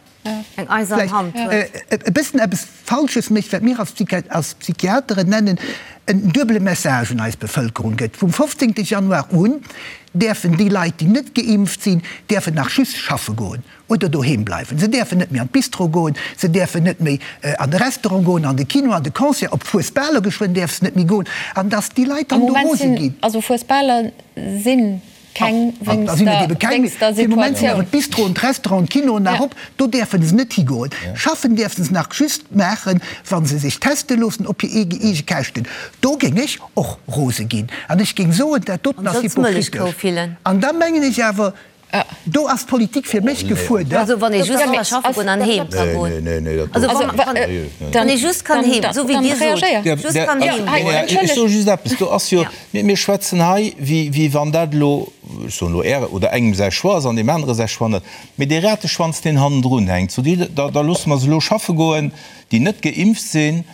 Eng eisern Hand huet. E bëssen eppes Falsches mécht, wat mir als Psychiateren nennen en duebele Message un eis Bevëlkerung gëtt. Vum 15. Januar un däerfen déi Leit, déi net geimpft sinn, däerfen nach just schaffe goen oder doheem bleiwen. Se däerfen net méi an d'Bistro goen, se däerfen net méi an de Restaurant goen, an de Kino, an de Concert, op Fuesbaler geschwënn däerf se net méi goen. An datt déi Leit dann do rose ginn. Also Fuesbaler sinn Keng wéinst der Fir de Moment sinn awer d'Bistroen, d'Restauranten, d'Kinoen nach op. Do däerfe se net higoen. Schaffen däerfe se nach just maachen, wa se sech teste loossen op hir eege Käschten. Do géing ech och rose ginn an ech géing soen, dat doten ass hypokritesch. An da mengen ech awer, do ass d'Politik fir mech gefuerdert. Also wann ee just ka schaffe goen an heem ka goen. Also wann ee just kann heem, esou wéi Dir sot, just kann heem goen. Ech soe just eppes, do ass jo, Mir schwätzen hei, wéi wann dat elo, ech soen elo Äre oder engem säi Choix ass an deem anere säi Choix net, mee dee Rateschwanz, deen hannendrun hänkt, sot Dir, da loosse mer se elo schaffe goen, déi net geimpft sinn,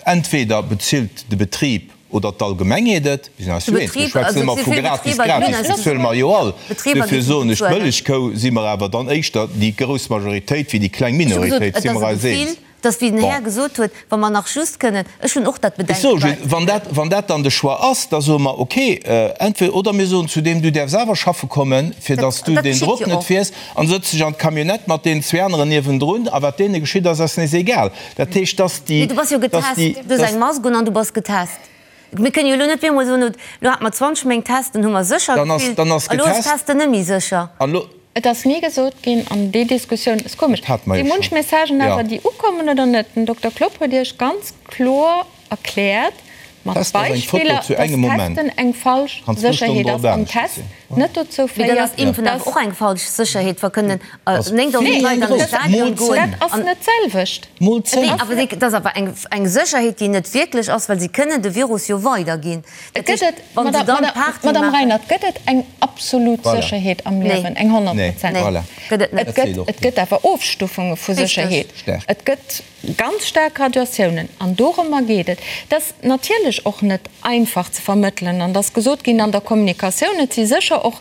entweder bezilt de Betrib oder d'Allgemengheet et, mir sinn eis jo eens, mir schwätzen ëmmer vu gratis, gratis bezuele mer jo all, duerfir soen ech, d'Mëllechkou si mer awer dann éischter déi grouss Majoritéit wéi déi kleng Minoritéit, si mer eis eens. Dass, wéi den Här gesot huet, wa mer nach just kënnen, ech hunn och dat Ech soe Bedenken, just, wann dat, wann dat dann de Choix ass, da soe mer, okay, entweder oder mir soen zu deem, du däerfs awer schaffe kommen, fir Dat, dass du dat deen geschitt Drock jo net och. fiers, an sëtz dech an d'Camionnette mat deenen zwee aneren niewendrun, a wat deene geschitt ass, ass nees egal. Dat heescht, dass déi, Mee du bass jo dass getest, déi, du hues dass. eng Mask un an du bass getest. Mir kënnen jo elo net op eemol soen, elo hate mer 20 Méint Testen, hu mer sécher Dann ass, gefillt, dann ass a lo ass getest. Testen net méi sécher. An elo. Et ass ni gesot ginn, an déi Diskussioun ass komesch, Dat hate mer si jo munch schonn. Messagen Jo. awer, déi ukommen oder net. Den Dokter Klopp huet Iech ganz kloer erkläert, mat Testen ass eng Foto Beispiller, zu dass engem Moment. Testen eng falsch Kanns zwou Stonnen Sécherheet drop ass an anescht Test sinn. net dozou Mee dann féiert, ass Impfen awer dass. och eng falsch Sécherheet, wa kënnen Ass 9.000 vill Leit an de grouss. Stadion Mol goen. 10. Dat ass net d'selwecht. Mol 10. Nee, awer dat ass awer eng, eng Sécherheet, déi net wierklech ass, well si kënnen de Virus jo weiderginn. Et gëtt et, Madame Reinert, gëtt et eng absolut Sécherheet am Liewen, eng honnertprozenteg? Et gëtt, et gëtt awer Ofstufunge vu Sécherheet. Et gëtt ganz staark Graduatiounen an dorëmmer geet et. Et ass natierlech och net einfach ze vermëttelen an et ass gesot ginn an der Kommunikatioun, et si sécher och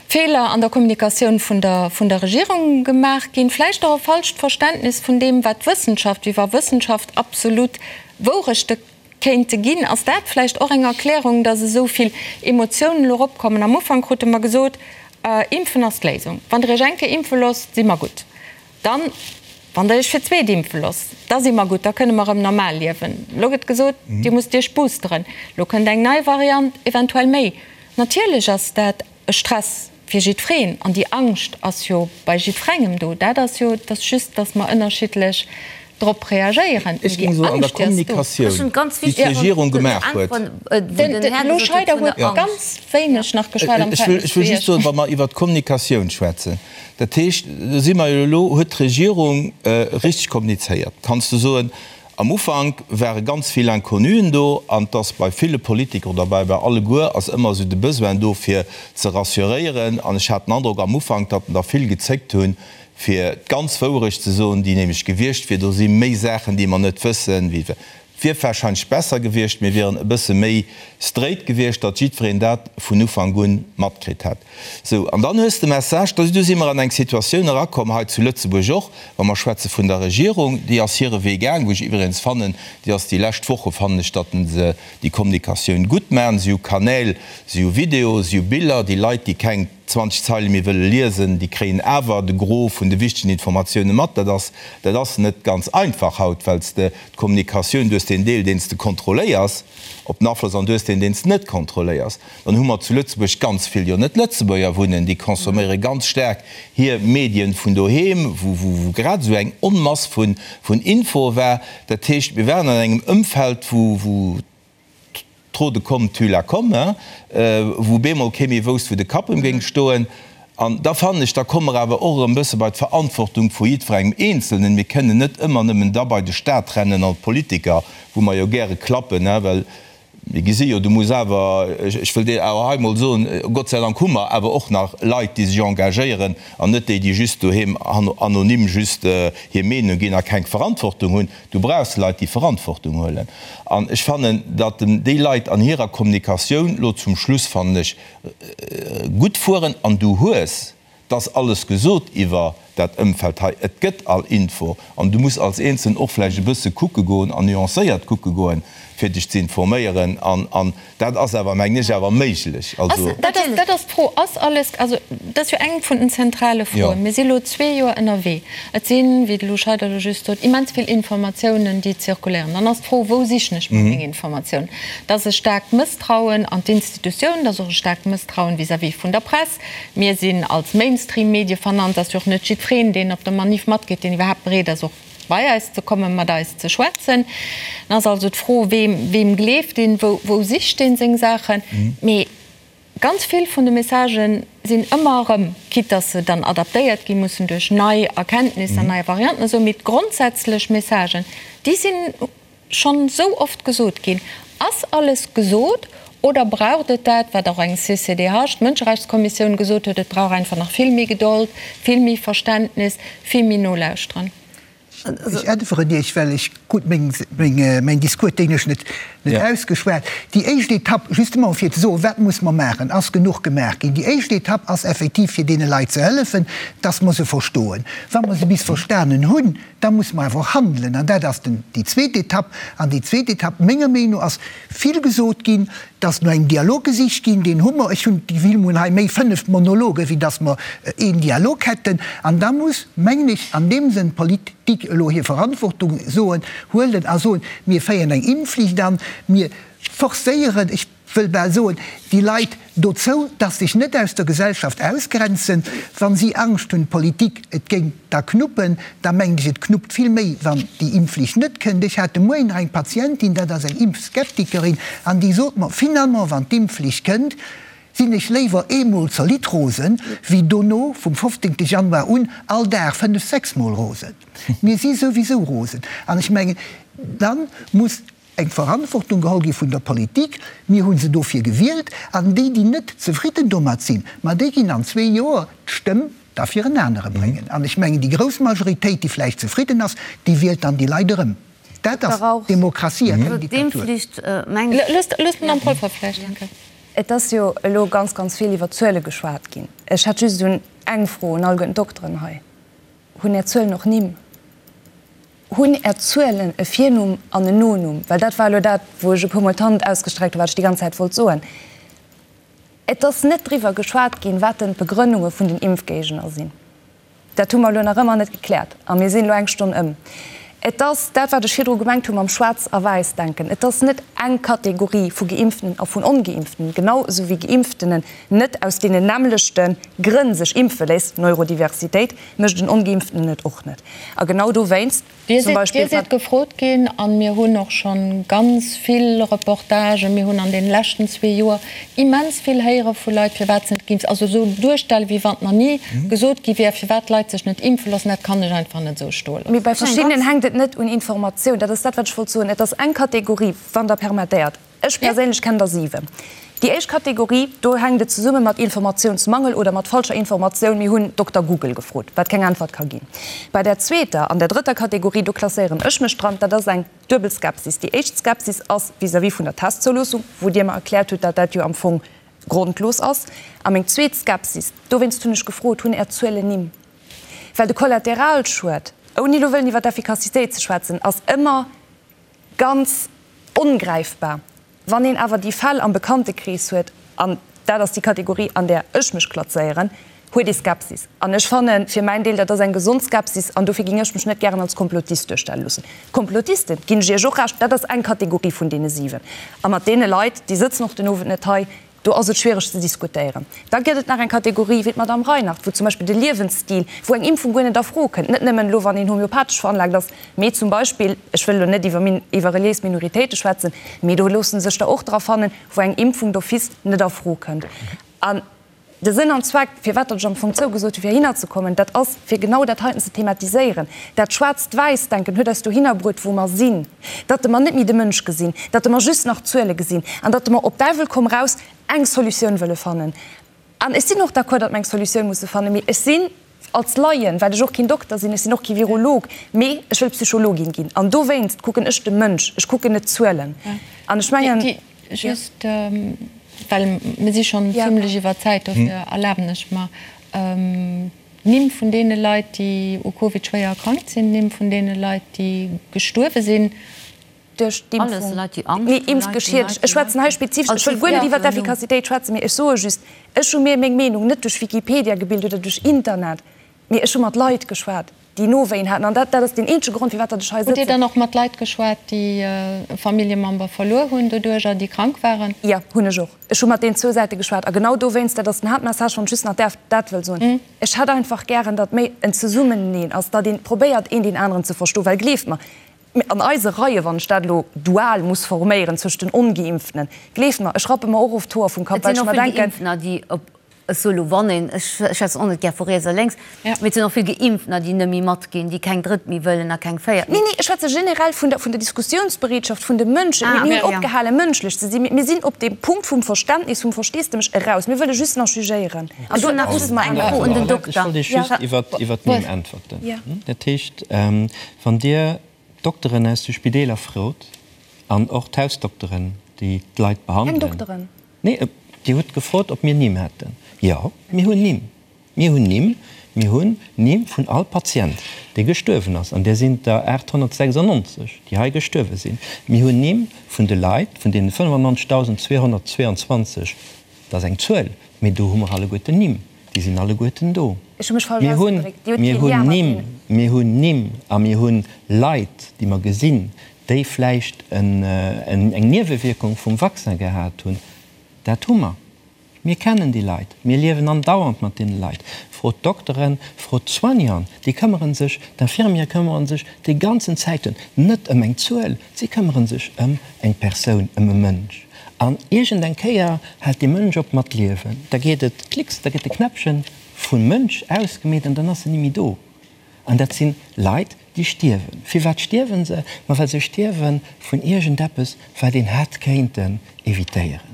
Feeler an der Kommunikatioun vun der, vun der Regierung gemaach ginn, vläicht och e falscht Verständnis vun deem, wat d'Wëssenschaft, wéi wa Wëssenschaft absolut Wourechte kéinte ginn. Ass dat vläicht och eng Erklärung, datt esou vill Emotiounen elo eropkommen? Am Ufank krute mer gesot, Impfen ass d'Léisung. Wann Der Iech eng Kéier impfe loosst, si mer gutt. Dann, wann Der Iech fir d'zweet impfe loosst, da si mer gutt, da kënne mer erëm normal liewen. Elo gëtt gesot, Dir musst Iech boosteren. Elo kënnt eng nei Variant, eventuell méi. Natierlech ass dat e Stress fir jiddwereen an déi Angscht ass jo bei jiddwerengem do. Dat ass jo, et ass just, datt mer ënnerschiddlech drop reagéieren, Ech mee géing déi soen, an der Angscht, déi ass do. Kommunikatioun, déi d'Regierung gemaach huet. Den Lou Scheider huet ganz wéineg nach geschwat am Ech wëll, Verhältnis ech zu wëll just Iech. soen, wa mer iwwert d'Kommunikatioun schwätzen, dat heescht, do si mer jo elo, huet d'Regierung richteg kommunizéiert? Kanns de soen, Am Ufank ware ganz vill Inconnuen do an 't ass bei ville Politiker oder bei bei alleguer ass ëmmer esou de Besoin do fir ze rassuréieren an ech hat den Androck am Ufank, datt der vill gezéckt hunn fir d'ganz Wouerecht ze soen, déi nämlech gewiescht wier, do si méi Saachen déi mer net wëssen wéi. Wier warscheinlech besser gewiescht, mir wieren e bësse méi straight gewiescht, datt jiddwereen dat vun Ufank un matkritt hätt. Sou, an dann hues de Message, da du si mer an eng Situatioun erakomm, hei zu Lëtzebuerg och, wa mer schwätze vun der Regierung, déi ass hire Wee gaang, wou ech iwwregens fannen, déi ass déi lescht Woche fannen ech, datt se déi Kommunikatioun gutt maachen. Si hu Kanäl, si hu Video, si hu Biller, déi Leit, déi keng 20 Zeile méi wëlle liesen, déi kréien awer de Gros vun de wichtegen Informatioune mat. Dat ass, dat ass net ganz einfach haut, well s de d'Kommunikatioun, du hues deen Deel, deen s de kontrolléiers op den Afloss an du hues deen, deen s de net kontrolléiers. Dann hu mer zu Lëtzebuerg ganz vill jo net Lëtzebuerger wunnen, déi consomméiere ganz staark hir Medien vun doheem, wou, wou, wou grad esou eng Onmass vun, vun Infoe war. Dat heescht, mir waren an engem Ëmfeld, wou, wou Trop de com tue la com, hein, wou bemol kee méi wousst, wou de Kapp ëm géing stoen. An da fannen ech, da komme mer awer och erëm e bësse bei d'Verantwortung vu jiddwerengem Eenzelnen. Mir kënnen net ëmmer nëmmen da bei de Stat rennen an d'Politiker, wou mer jo gäre klappen, hein, well mir gesi jo, du muss awer, ech wëll dir awer hei emol soen, Gott sei Dank hu mer awer och nach Leit, déi sech engagéieren an net déi, déi just doheem anonym just hir Meenung ginn a keng Verantwortung hunn. Du brauchs Leit, déi Verantwortung huelen. An ech fannen, datt déi Leit an hirer Kommunikatioun lo zum Schluss, fannen ech, gutt fueren. An du hues, 't ass alles gesot iwwer dat Ëmfeld hei, et gëtt all Info. An du muss als Eenzelnen och vläicht e bësse kucke goen an nuancéiert kucke goen, fir dech ze informéieren. An Dat ass awer, mengen ech, awer méiglech. Also. Dat ass, dat ass d'Fro. Ass alles, also dat ass jo eng vun den zentrale Froen. Mir si elo zwee Joer ënnerwee. Et sinn, wéi de Lou Scheider elo just sot, immens vill Informatiounen, déi zirkuléieren. Dann ass d'Fro, Wou sichen ech mer meng Informatiounen? Dat ass e staarkt Mësstrauen an d'Institutiounen, dat ass och e staarkt Mësstrauen vis-à-vis vun der Press. Mir sinn als Mainstream-Medie vernannt, ass jo och net jiddwereen, deen op der Manif matgeet, deen iwwerhaapt bereet ass, och bei eis ze kommen, mat eis ze schwätzen. Dann ass also d'Fro, weem, weem gleeft een, wou, wou sicht een seng Saachen. Mee ganz vill vun de Messagen sinn ëmmer erëm, quitte dass se dann adaptéiert gi mussen duerch nei Erkenntnisser, nei Varianten a sou, mee d'grondsätzlech Messagen, déi sinn schonn esou oft gesot ginn. Ass alles gesot oder braucht et dat, wat och eng CCDH, d'Mënscherechtskommissioun, gesot huet, et brauch einfach nach vill méi Gedold, vill méi Verständnis, vill méi Nolauschteren? Ech äntweren Iech, well ech krut mäin Discours technesch net ausgeschwat. Déi éischt Etapp, justement fir ze soen, wat muss mer maachen, ass genuch gemaach ginn. Déi éischt Etapp ass effektiv fir deene Leit ze hëllefen, dass mer se verstoen. Wa mer se bis verstanen hunn, Da muss mer awer och handelen, an dat ass den, déi zweet Etapp. An déi zweet Etapp, menger Meenung no, ass vill gesot ginn, dass no engem Dialog gesicht ginn. Deen hu mer. Ech hunn d'Gefill, mer hunn hei méi 5 Monologen, wéi dass mer een Dialog hätten. An da muss, mengen ech, an deem Sënn d'Politik elo hir Verantwortung soen, huelen a soen, Mir féieren eng Impfflicht an, mir forcéieren, ech wëll bal soen, déi Leit dozou, dass sech net aus der Gesellschaft ausgrenzen. Wa si Angscht hunn, d'Politik, et géing da knuppen, da mengen ech, et knuppt vill méi, wann déi Impfflicht net kënnt. Ech hat de Moien nach eng Patientin, dat ass eng Impfskeptikerin, an déi sot mer, finalement, wann d'Impfflicht kënnt, sinn ech léiwer eemol zolidd rosen, wéi dono vum 15. Januar un all Dag fënnef, sechsmol rosen. Mir si souwisou rosen. An ech mengen, da muss eng Verantwortung geholl gi vun der Politik, mir hu se dofir gewielt, an déi, déi net zefridden domat sinn, ma déi ginn an zwee Joer d'Stëmm da fir en anere bréngen. An ech mengen, déi grouss Majoritéit, déi vläicht zefridden ass, déi wielt dann déi Leit erëm. Dat ass Demokratie a keng Diktatur. Et ass jo elo ganz, ganz vill iwwer Zuele geschwat ginn. Ech hätt just un eng Fro un alleguerten d'Dokteren hei, Hunn Är Zuelen och Nimm? Hunn Är Zuelen e Virnumm an en Nonumm? Well dat war elo dat, wou ech e puermol d'Hand ausgestreckt hunn, wat ech déi ganz Zäit wollt soen. Et ass net driwwer geschwat ginn, wat denn d'Begrënnunge vun den Impfgéigner sinn. Dat hu mer elo nach ëmmer net gekläert a mir sinn elo eng Stonn ëm. Et ass dat, wat ech virdru gemengt hu mam Schwaarz a Wäiss-Denken. Et ass net eng Kategorie vu Geimpftenen a vun Ongeimpftenen, genau esou wéi Geimpftenen net aus deenen nämmlechte Grënn sech impfe léisst, Neurodiversitéit, mécht en Ongeimpftenen et och net. A genau dowéinst Dir zum Beispill. Dir sidd gefrot ginn, a mir hunn och scho ganz vill Reportagen, mir hunn an deene leschten zwee Joer immens vill héiere vu Leit, firwat se net geimpft, also esou duerstellen, wéi wann nach ni gesot gi wär, firwat d'Leit sech net impfe loossen, dat kann ech einfach net esou stoe loossen. Mee bei verschiddenen hänkt et net un Informatioun. Dat ass dat, wat ech wollt soen. Et ass eng Kategorie, wann Der permettéiert. Ech perséinlech kennen der 7. Déi éischt Kategorie, do hänkt et zesumme mat Informatiounsmangel oder mat falscher Informatioun. Mir hunn Dokter Google gefrot, wat keng Äntwert ka ginn. Bei där zweeter an der drëtter Kategorie, do klasséieren ech mech dran, dat ass eng duebel Skepsis. Déi éischt Skepsis ass vis-à-vis vun der Testzouloossung, wou Dir mer erkläert hutt, datt dat jo am Fong grondlos ass. A meng zweet Skepsis, dowéinst hunn ech gefrot, hunn Är Zuelen Nimm? Well de Kollateralschued, ouni elo wëllen iwwer d'Effikassitéit ze schwätzen, ass ëmmer ganz ongräifbar. Wann een awer déi Fäll am Bekanntekrees huet, an dat ass déi Kategorie, an där ech mech klazéieren, huet ee Skepsis. An ech fanne fir mäin Deel, dat ass eng gesond Skepsis an dofir ging ech mech net gären als Komplotist duerstelle loossen. Komplotisten, ginn ech Iech och Recht, dat ass eng Kategorie vun deene 7. A mat deene Leit, déi sëtzen och den Owend net hei, Do ass et schwiereg ze diskutéieren. Da gëtt et nach eng Kategorie wéi d'Madame Reinhardt, wou zum Beispill de Liewensstil, wou eng Impfung guer net a Fro kënnt, net nëmmen elo wann een homeopathesch veranlaagt ass, mee zum Beispill, ech wëll elo net iwwer iwwer reliéis Minoritéite schwätzen, mee do loosse sech der och dra fannen, wou eng Impfung d'office net a Fro kënnt. An De Sënn an Zweck, firwat datt ech am Fong zougesot hu fir heihinner ze kommen, dat ass, fir genau dat heiten ze thematiséieren. Dat Schwaarzt-Wäiss-Denken huet eis dohinner bruet, wou mer sinn, datt mer net méi de Mënsch gesinn, datt mer just nach Zuele gesinn an datt mer op Däiwel komm raus eng Solutioun wëlle fannen. An ech sinn och d'accord, datt mer eng Solutioun musse fannen, mee ech sinn als Laien, well ech och keen Dokter sinn, ech sinn och kee Virolog, mee ech wëll Psychologin ginn an dowéinst kucken ech de Mënsch, ech kucken net d'Zuelen. An ech mengen. Just, well mir si schonn zimlech iwwer Zäit, dofir erlaben ech mer, d'Nimm vun deene Leit, déi u Covid schwéier erkrankt sinn, d'Nimm vun deene Leit, déi gestuerwe sinn. Duerch d'Impfung, nee, impfgeschiedegt. Ech schwätzen hei spezifesch, ech wëll guer net iwwer d'Effikassitéit schwätzen, mee ech soe just, ech hu mir meng Meenung net duerch Wikipedia gebilt oder duerch Internet, mee ech hu mat Leit geschwat. déi Nowéien haten. An dat, dat ass deen eenzege Grond, firwat datt ech hei Hutt Dir sëtzen. dann och mat Leit geschwat, déi e Familljemember verluer hunn doduercher, déi krank waren? Jo, hunn ech och. Ech hu mat deenen zwou Säite geschwat. A genau dowéinst, dat ass den Haaptmessage, wann ech just nach däerf dat wëll soen, Ech hätt einfach gären, datt méi en Zesummeneen ass, datt ee probéiert, een deen aneren ze verstoen. Well gleeft mer, an eise Reie, wann ech dat elo dual muss forméieren zwëscht den Ongeimpftenen, gleeft mer, ech rappe mer och oft d'Hoer vum Kapp, Et well sinn ech och mer vill denken, Geimpftener, déi op Ech soe lo wann een, ech schwätzen och net gär vu riets a lénks, mee et sinn och vill Geimpftener, déi net méi matginn, déi keng drëtt méi wëllen a keng véiert méi. Nee, nee, ech schwätze generell vun der, vun der Diskussiounsbereetschaft vun de Mënschen. Mir hunn opgehale mënschlech ze sinn. Mir sinn op deem Punkt vum Verständnis, vum Versteesdemech eraus. Mir wëlle just nach jugéieren. An do musse mer eng Fro un den Dokter. Ech wollt Iech just iwwert, iwwert d'Nimm äntwerten. Dat heescht, wann Dir d'Dokteren aus de Spideeler frot an och d'Hausdokteren, déi d'Leit behandelen. Keng Dokteren? Nee, Dir hutt gefrot, ob mir Nimm hätten. Jo, mir hunn Nimm. Mir hunn Nimm. Mir hunn Nimm vun all Patient, dee gestuerwen ass, an där sinn der 896, déi hei gestuerwe sinn. Mir hunn Nimm vun de Leit, vun deene 95.222, dat ass eng Zuel, mee do hu mer alleguerten Nimm, déi sinn alleguerten do. Mir hunn, mir hunn Nimm, mir hunn Nimm a mir hunn Leit, déi mer gesinn, déi vläicht eng Niewewierkung vum Vaccin gehat hunn, dat hu mer. Mir kennen déi Leit, mir liewen andauernd mat deene Leit. Frot d'Dokteren, frot d'Soignanten, déi këmmere sech, d'Infirmiere këmmere sech déi ganzen Zäiten net ëm eng Zuel, si këmmere sech ëm eng Persoun, ëm e Mënsch. An iergend eng Kéier hält dee Mënsch op mat liewen, da geet et klicks, da gëtt de Knäppchen vum Mënsch ausgemeet an dann ass en ni méi do. An dat si Leit, déi stierwen. Firwat stierwe se? Ma well se stierwe vun iergendeppes, wat een hätt kéinten evitéieren.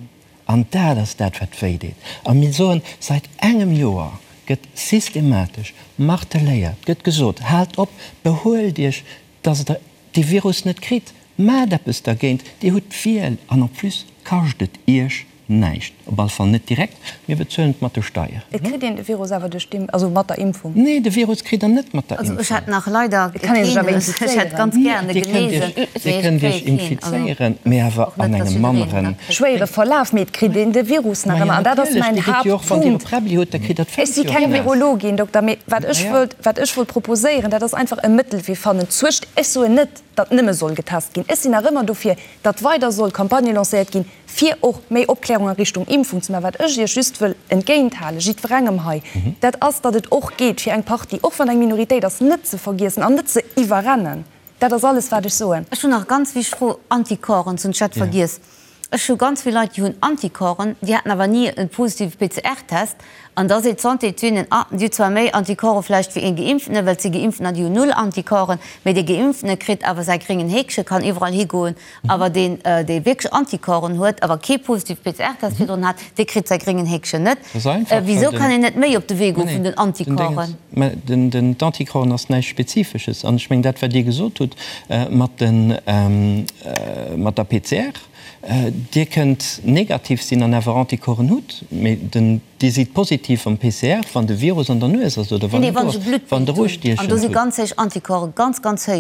An dat ass dat, wat wéi deet. A mir soen, säit engem Joer gëtt systematesch marteléiert, gëtt gesot, Haalt op, behuelt Iech, dass Der dee Virus net kritt, maacht eppes dergéint, Dir hutt d'Wiel an en plus kascht et Iech Näischt, op alle Fall net direkt. Mir bezuelen et mat de Steieren. Et kritt een de Virus awer duerch d'Impfung, also mat der Impfung. Nee, de Virus kritt der net mat der Impfung. Also ech hätt nach leider Et kann een sech awer keen, ech hätt ganz infizéieren. gären e Dir kënnt genesen, Iech, mee Dir ech kënnt Iech kréie keen. Also infizéieren, mee awer och net, an dass engem jiddereen en manneren. da kritt. Schwéiere Verlaf, mee et kritt een de Virus nach Majo ëmmer. An dat ass natierlech, mäin Dir kritt jo och, wann Dir e Haaptpunkt. Präbbli hutt, da kritt Der Ech d'Féiss si jo och keng naass. Virologin, Dokter, mee wat ech Maja. wëllt, wat ech wollt proposéieren, dat ass einfach e Mëttelwee fannen zwëscht, ech soen net, datt nëmme soll getest ginn, ech sinn nach ëmmer dofir, datt weider soll Campagne lancéiert ginn, fir och méi Opklärung a Richtung Impfung ze maachen. Wat ech Iech just wëll entgéinthalen, jiddwerengem hei, dat ass, datt et och geet, fir eng Partie, och wann eng Minoritéit ass, net ze vergiessen an net ze iwwerrennen. Dat ass alles, wat ech soen. Ech hunn nach e ganz wichteg Fro, Anticorpsen, soss ech hätt vergiess. Ech hu ganz vill Leit, déi hunn Anticorpsen, déi haten awer ni e positive PCR-Test. An da seet d'Santé zu hinnen, ah, dir hutt zwar méi Anticorpse vläicht wéi ee Geimpftene, well et si Geimpftener, déi hunn null Anticorpsen, mä dee Geimpftene kritt awer säi gréngen Häkche, kann iwwerall higoen, awer deen, dee wierklech Anticorpsen huet, awer kee positive PCR-Test virdrun hat, dee kritt säi gréngen Häkchen net. Wisou kann een net méi op de Wee goe vun den Anticorpsen? Mä den d'Anticorpsen ass näischt Spezifesches. An ech mengen, dat, wat Dir gesot hutt mat den, mat der PCR, Dir kënnt negativ sinn an awer Anticorpsen hutt, mee den, Dir sidd positiv am PCR, wann de Virus an der Nues ass oder wann en do ass, wann Der ustiechend hutt.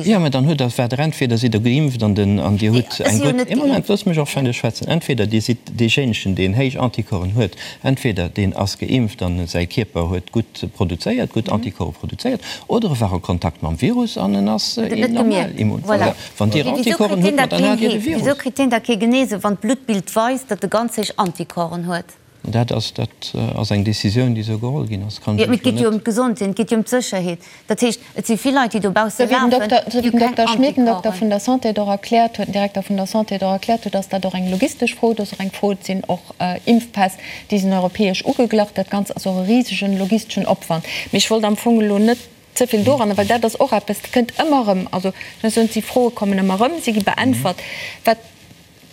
Jo, mä dann hutt Der, waart Der entweder sidd Der geimpft an den, an Dir hutt eng gutt, ee Moment, loosst mech och fäerdeg schwätzen, entweder Dir sidd deejéinegen, deen héich Anticorpsen huet, entweder deen ass geimpft an säi Kierper huet gutt produzéiert, gutt Anticorpse produzéiert, oder e war a Kontakt mam Virus an en ass normal immun. Voilà. Wann Dir Anticorpsen hutt, ma dann hat Dir de Virus. Wisou kritt deen da kee Genese, wann d'Bluttbild weist, datt e ganz héich Anticorpsen huet? Dat ass, dat ass eng Décisioun, déi esou geholl ginn ass. Kann ech lech elo net. Mee et geet jo ëm d'Gesondheet, et geet jo ëm d'Sécherheet. Dat heescht, et si vill Leit, déi dobausse lafen, déi hu keng Esou wéi den Dokter Schmit, den Dokter vun der Santé, et och erkläert huet, den Direkter vun der Santé et och erkläert huet, ass dat och eng logistesch Fro. Et ass och eng Fro, et sinn och Impfpäss, déi sinn europäesch ugeglach. Dat Ganzt ass och e risegen logisteschen Opwand. Mee ech wollt am Fong elo net ze vill doranner, well dat ass och eppes, dat kënnt ëmmer erëm. Also ech muss soen, déi Froe kommen ëmmer erëm, si gi beäntwert. Wat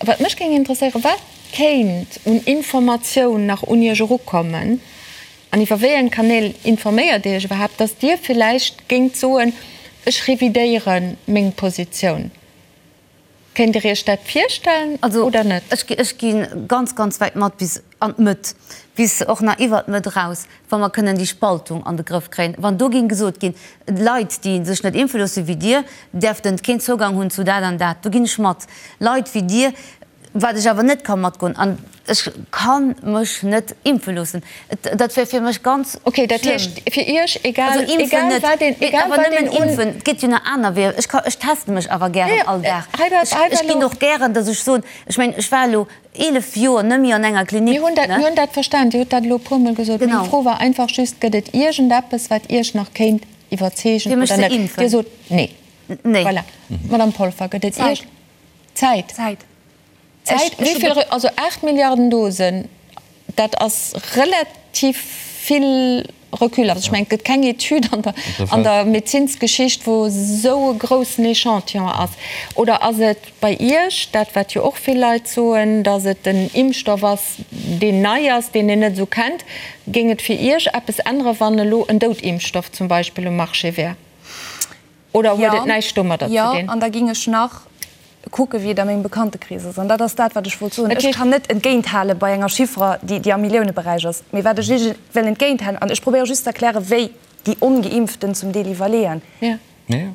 Wat mech géing interesséieren, Wat kéint un Informatioun nach un Iech erukommen an iwwer wéi eng Kanäl informéiert Dir Iech iwwerhaapt, datt Dir villäicht géingt soen, ech revidéiere meng Positioun? Kéint Dir Iech dat virstellen oder net? Also ech gi ganz, ganz wäit mat bis an d'Mëtt, bis och nach iwwert d'Mëtt eraus, wa mer kënnen déi Spaltung an de Grëff kréien. Wann do géing gesot ginn, Leit, déi sech net impfe loosse wéi Dir, däerften keen Zougang hunn zu dat an dat, do ginn ech mat. Leit wéi Dir, wat ech awer net ka matgoen, an ech ka mech net impfe loossen, dat wär fir mech ganz schlëmm. Okay, dat heescht fir Iech, egal, egal wat een, egal wat een un. Impfen, et gëtt jo nach aner Weeër. Ech ka, ech teste mech awer gären all Dag. Ech ginn och gären, datt ech soen, ech mengen, ech war elo 11 Joer net méi an enger Klinik. Mir hunn dat, mir hunn dat verstan. Dir hutt dat elo e puermol gesot. Meng Fro war einfach just, Gëtt et iergendeppes, wat Iech nach kéint iwwerzeegen oder net? Dir sot nee. Nee. Voilà. Madame Polfer, gëtt et Iech. Zäit. Zäit. Zäit. Wéi vill, also 8 Milliarden Dosen, dat ass relativ vill Recul. Also ech mengen, et gëtt keng Etüd an der, an der Medezinsgeschicht, wou esou e groussen Echantillon ass. Oder ass et bei Iech dat, wat jo och vill Leit soen, datt et en Impfstoff ass, deen nei ass, deen een net esou kennt? Géing et fir Iech eppes änneren, wann elo en Doutimpfstoff zum Beispill um Marché wär? Oder huet et näischt domadder ze dinn? Jo, an da géing ech nach kucken, wéi et a mengem Bekanntekrees ass. An dat ass dat, wat ech wollt soen. Ech kann net entgéinthale bei enger Chiffre, déi am Milliouneberäich ass. Mee wat ech Iech wëll entgéinthalen, an ech probéiere just ze erklären, wéi déi Ongeimpften zum Deel iwwerleeën.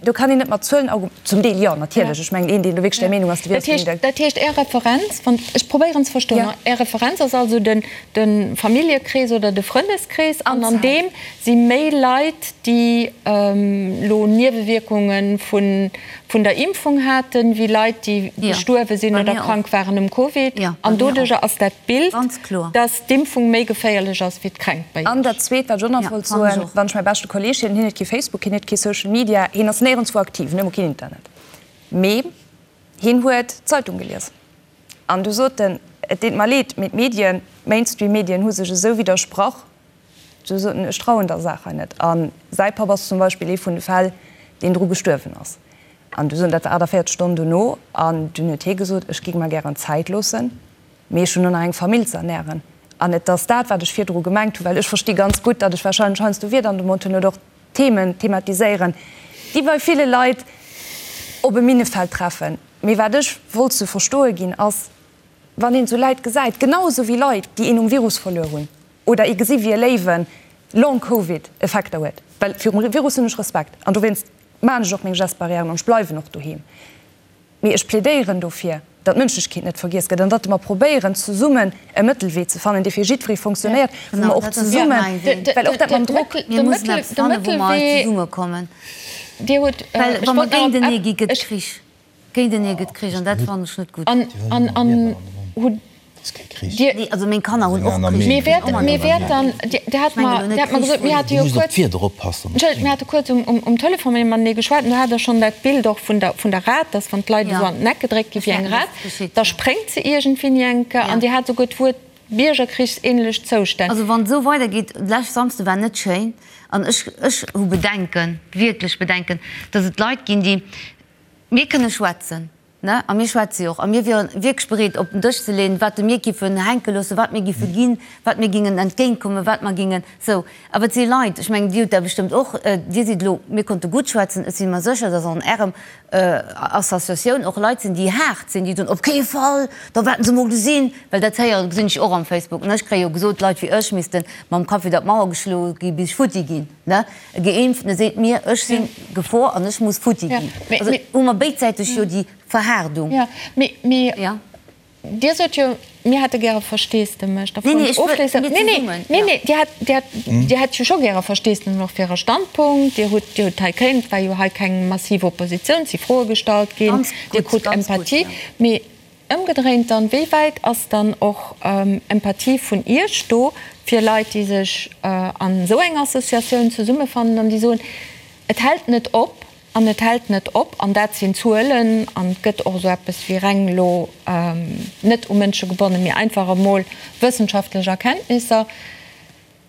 Do kann een net mat Zuelen argumentieren. Zum Deel jo, natierlech. Ech mengen, een, deen do wierklech där Meenung ass, dee wier och. Dat heescht, Är Referenz, wann ech probéieren ze verstoen, Är Referenz ass also de Familljekrees oder de Frëndeskrees, an an deem si méi Leit, déi elo Niewewierkunge vun der Impfung haten, wéi Leit, déi gestuerwe sinn oder krank waren um Covid. An doduerjer ass dat Bild, dass d'Impfung méi geféierlech ass wéi d'Kränkt bei Iech. An dat Zweet, wat ech och nach wollt soen, Wann ech mäi beschte Kolleeg hien, hien huet kee Facebook, hien huet kee Social Media, hien ass néierenswou aktiv, hien huet emol keen Internet, mee hien huet d'Zeitung gelies. An du sot en, Et deet mer leed, mee d'Medien, d'Mainstream-Medien hu sech esou widdersprach, Sou sot en, Ech trauen der Saach hei net. A säi Papp ass zum Beispill ee vun de Fäll, deen dru gestuerwen ass. An du sot en, dat war 48 Stonnen dono, an dunn huet hie gesot, Ech géing mer gären Zäit loossen, mee ech hunn och nach eng Famill ze ernären. An et ass dat, wat ech virdru gemengt hunn, well ech versti ganz gutt, datt ech warscheinlech heiansdo Wierder an de Mond hunn oder och Themen thematiséieren, déi bei ville Leit op e Minnefeld treffen. Mee wat ech wollt ze verstoe ginn, ass, wann een esou Läit gesäit, genau esou wéi Leit, déi een um Virus verluer hunn, oder ee gesi wéi e Léiwen Long Covid Effekter huet, well virum Virus hunn ech Respekt an dowéinst maachen ech och meng Gestes barrièren an ech bleiwen och doheem, mee ech plädéieren dofir, datt d'Mënschlechkeet net vergiess gëtt an datt mer probéieren zesummen e Mëttelwee ze fannen, dee fir jiddweree fonctionnéiert, wou mer och zesummen, well och dat mam Drock. Mir mussen eppes fannen, wou mer hei zesummekommen, well wa mer géintenee gi gëtt Krich. Géintenee gëtt Krich an dat fannen ech net gutt. An hutt Dir. Nee, also meng Kanner hunn och Krich. Mir wäerten, mir wäerten, Dir hat mer, Dir hat mer gesot, mir hate jo kuerz, Entschëllegt, mir hate kuerz um Telefon matenee geschwat an do hat Der schonn dat Bild och vun der, vun der Rat, dass wann d'Leit esou an den Eck gedréckt gi wéi eng Rat, da spréngt se iergendwéini eng Kéier. An Dir hat esouguer d'Wuert. biergerkrichsähnlech Zoustänn. Also wann et esou weidergeet, lescht Samsde war net schéin an ech, ech hu Bedenken, wierklech Bedenken, datt et Leit ginn, déi, mir kënne schwätzen, ne, a mir schwätze jo och a mir wiere wierklech bereet op den Dësch ze leeën, wat mir giffen hänke loossen, wat mir giffe ginn, wat mir gingen entgéintkommen, wat mer gingen esou. Awer et si Leit, ech mengen, Dir hutt dat bestëmmt och, Dir sidd elo, mir konnte gutt schwätzen, ech si mer sécher, datt an Ärem Associatioun och Leit sinn, déi haart sinn, déi soen, op kee Fall, da wäerten se mol gesinn, well dat héieren, gesinn ech och am Facebook, ne, ech kréie jo gesot, Leit wéi ech misste mam Kapp widder d'Mauer geschloe gi bis ech futti ginn, ne, e Geimpftene seet mir, ech si Gefor an ech muss futti ginn. Also hu mer béidsäiteg jo déi Verhaardung. Dir sot jo, mir hätte gäre Versteesdemech. Nee, nee, ech wëll, mir zesummen. Nee, nee, Dir hätt, Dir hätt, Dir hätt jo scho gäre Versteesdemech och fir Äre Standpunkt. Dir hutt, Dir hutt hei kéint, et war jo hei keng massiv Oppositioun, et si Froe gestallt ginn, Dir krut Empathie. Mee ëmgedréint dann, wéi wäit ass dann och Empathie vun Iech do fir Leit, déi sech an esou enger Associatioun zesummefannen an déi soen, et hält net op, An et hält net op, an dat sinn Zuelen, an et gëtt och esou eppes wéi reng elo net u Mënsche gebonnen, mee einfach emol wëssenschaftlech Erkenntnisser,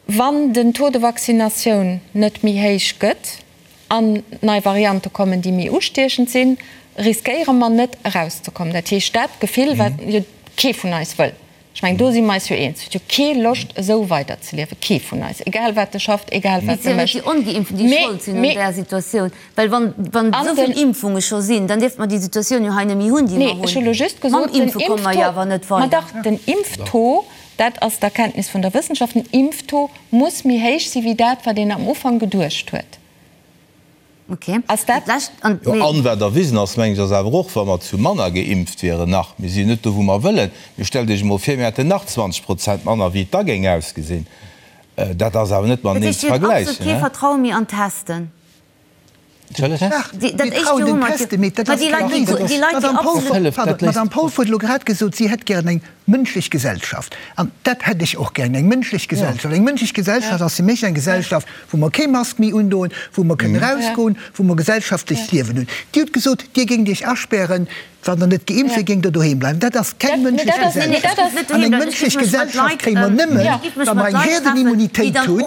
Wann den Taux de vaccinatioun net méi héich gëtt an nei Variante kommen, déi méi ustiechend sinn, riskéiere mer net erauszekommen. Dat heescht, dat Gefill, wat jo kee vun eis wëll, Ech mengen, do si mer eis jo eens, huet jo kee Loscht esou weiderzeliewen, kee vun eis, egal wat e schafft, egal wat e mécht. Et sinn jo net déi Ongeimpften, déi Schold sinn un där Situatioun, well wann, wann esou vill Impfunge scho sinn, dann dierfte mer déi Situatioun jo hei net méi hunn, déi mer hunn. Nee, ech hu lo just gesot, den Impfe komme mer jo awer net weider. Ma dach, den Impftaux, dat ass d'Erkenntnis vun der Wëssenschaft, den Impftaux muss méi héich si wéi dat, wat een am Ufank geduecht huet. Okay. Ass dat. Jo, an wat erwisen ass, mengen ech, ass awer och, wa mer zu manner geimpft wieren nach, mir si jo net do, wou mer wëllen, mee stellt Iech emol vir, mir hätten nach 20 Prozent manner, wéi et da géing ausgesinn. Dat ass awer net mateneen ze Dat heescht, Dir hutt vergläichen. absolut kee Vertraue méi an d'Testen? Dach, mir trauen den Testen, mee dat ass keng Léisung. D'Madame Polfer, pardon, d'Madame Polfer huet elo grad gesot, si hätt gären eng mënschlech Gesellschaft. An dat hätt ech och gären, eng mënschlech Gesellschaft. Eng mënschlech Gesellschaft ass fir mech eng Gesellschaft, wou mer kee Mask méi undoen, wou mer kënnen erausgoen, wou mer gesellschaftlecht Liewen hunn. Dir hutt gesot, Dir géingt Iech aspären, wann Der net geimpft wiert, géingt Der doheem bleiwen. Dat ass keng mënschlech Gesellschaft. An eng mënschlech Gesellschaft kréie mer nëmmen, wa mer eng Herdenimmunitéit hunn.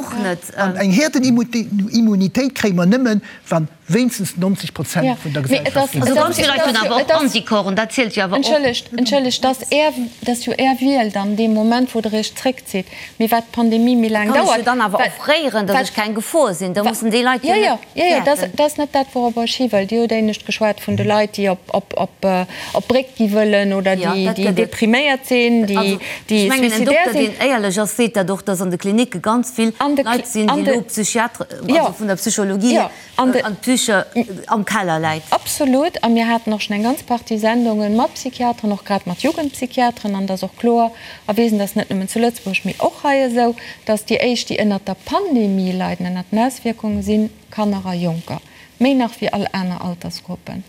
An eng Herdenimmunitéit kréie mer nëmmen, wann wéinstens 90 Prozent vun der Gesellschaft geimpft sinn. Ganz vill Leit hunn awer och Anticorpen, dat zielt jo awer och. Entschëllegt, entschëllegt, dass Är, dass jo Är Wiel dann dee Moment, wou Der Iech zréckzitt, mee wat d'Pandemie méi laang Kann ech dauert, jo dann awer wat, offréieren, dass wat, ech keng Gefor sinn. Da mussen déi Leit jo jo, net jo, jo, dat, fäerten. dat ass net dat, wouropper ech hi wëll. Dir hutt éinescht geschwat vun de Leit, déi op, op, op, op d'Bréck gi wëllen oder Jo, déi, dat déi gëtt et. depriméiert sinn, déi, Also, déi ech mengen, en suicidaire Dokter, sinn. deen éierlech ass, seet dat och, dass an de Klinicke ganz vill An de, Leit sinn, an déi de, elo Psychiatre, jo, also vun der Psychologie jo. hier, An d'Psyche am Keller läit. Absolut. A mir haten och schonn eng ganz Partie Sendunge mat Psychiateren, och grad mat Jugendpsychiateren. An et ass och kloer erwisen, dat ass net nëmmen zu Lëtzebuerg, mee och hei esou, dass déi éischt, déi ënnert der Pandemie leiden, ënnert den Auswierkungen, si Kanner a Jonker, méi nach wéi all aner Altersgruppen.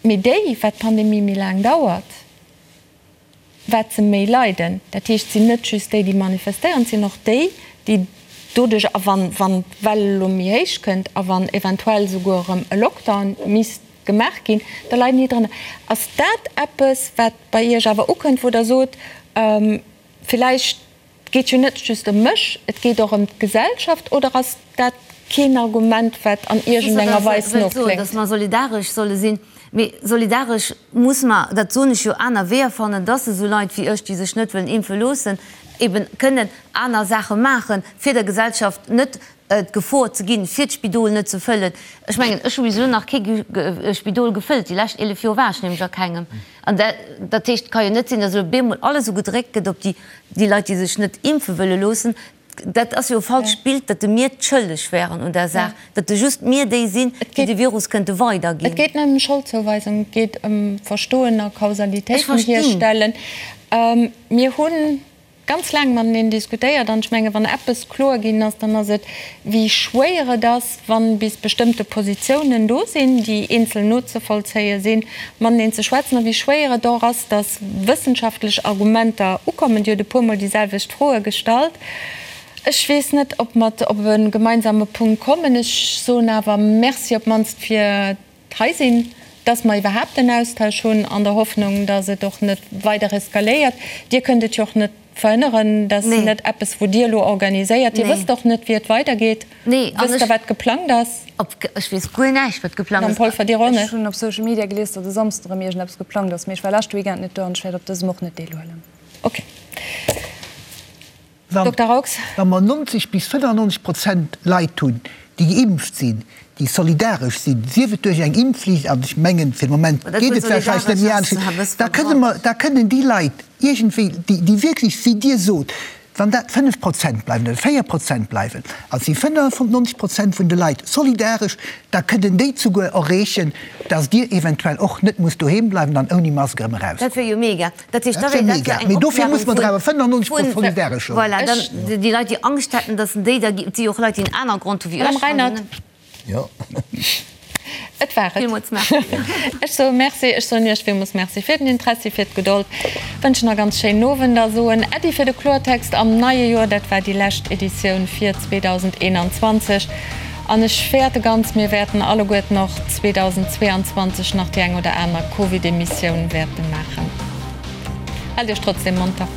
Mee déi, wat d'Pandemie méi laang dauert, wat se méi leiden. Dat heescht, et sinn net just déi, déi manifestéieren, et sinn och déi, déi doduerch, a wann, wann d'Well elo méi héich kënnt a wann eventuell souguer erëm e Lockdown misst gemaach ginn, da leiden déi drënner. Ass dat eppes, wat bei Iech awer ukënnt, wou Der sot, villäicht Et geet jo net just ëm mech, et geet och ëm d'Gesellschaft, oder ass dat keen Argument, wat an iergendenger Weis nokléngt? Datt mer solidaresch solle sinn. Mee solidaresch muss mer, dat soen ech jo, aner Weeër fannen, datt esou Leit wéi ech, déi sech net wëllen impfe loossen, eben kënnen aner Saache maachen, fir der Gesellschaft net d'Gefor ze ginn, fir d'Spidol net ze fëllen. Ech mengen, ech hu bis elo nach kee Spidol gefëllt, déi lescht 11 Joer war ech nämlech a kengem. An dat heescht, et ka jo net sinn, datt elo bemol alles esou gedréckt gëtt op déi Déi Leit, déi sech net impfe wëlle loossen, dat ass jo e falscht Bild, datt de mir d'schëlleg wären un der Saach, datt de just mir déi sinn, déi de Virus kënnte weiderginn. Et geet net ëm Scholdzouweisung, et geet ëm Verstoen a Kausalitéiten hierstellen. Mir hu ganz laang mateneen diskutéiert an ech menge wann eppes kloer ginn ass, dann ass et, wéi schwéier et ass, wann bis bestëmmte Positiounen do sinn, déi eenzel nozevollzéie sinn, mateneen ze schwätzen, a wéi schwéier et och ass, datt wëssenschaftlech Argumenter ukommen. Dir hutt e puermol déi selwecht Froe gestallt. Ech weess net, ob mer op e gemeinsame Punkt kommen. Ech soen awer Merci op d'mannst fir d'hei sinn, datt mer iwwerhaapt en Austausch hunn, an der Hoffnung, datt et och net weider eskaléiert. Dir kënnt et jo och net. Verhënneren. Dat ass net eppes, wou Dir elo organiséiert. Dir wësst och net, wéi et weidergeet. Wësst Der, wat geplangt ass? Ech weess guer näischt, wat geplangt ass. Madame Polfer, Dir och net? Ech hunn op Social Media gelies, datt e Samsden erëm iergendeppes geplangt ass, mee ech war leschte Weekend net do an ech wäert op dësem och net deelhuelen. Ok. Dokter Raux. Wa mer 90 bis 95 Prozent Leit hunn, déi geimpft sinn, déi solidaresch sinn, sief et duerch eng Impfflicht, an ech mengen, fir de Moment geet et warscheinlech net méi anescht, da kënne mer, da kënnen déi Leit iergendwéi, déi wierklech, wéi Dir sot, wann dat 5 Prozent bleiwen oder 4 Prozent bleiwen, an et si 95 Prozent vun de Leit solidaresch, da kënnen déi zuguer erreechen, dass Dir eventuell och net musst doheem bleiwen an ouni Mask erëm eraus. Dat wier jo mega. Dat heescht, da wär dat jo eng Mee dofir muss mer der awer 95 Prozent solidaresch hunn. Voilà, dann déi Leit, déi Angscht hätten, dass déi da, et si jo och Leit, déi en aner Grond hu wéi ech. Madame Reinert. Jo. Et war et. Villmools Merci. Ech soe Merci, ech soen Iech villmools Merci fir den Interessi, fir d'Gedold, wënschen e ganz schéinen Owend a soen Äddi fir de Kloertext am neie Joer. Dat war déi lescht Editioun fir 2021 an ech fäerte ganz, mir wäerten alleguerten och 2022 nach déi eng oder aner Covid-Emissioun wäerte maachen. Haalt Iech trotzdem monter.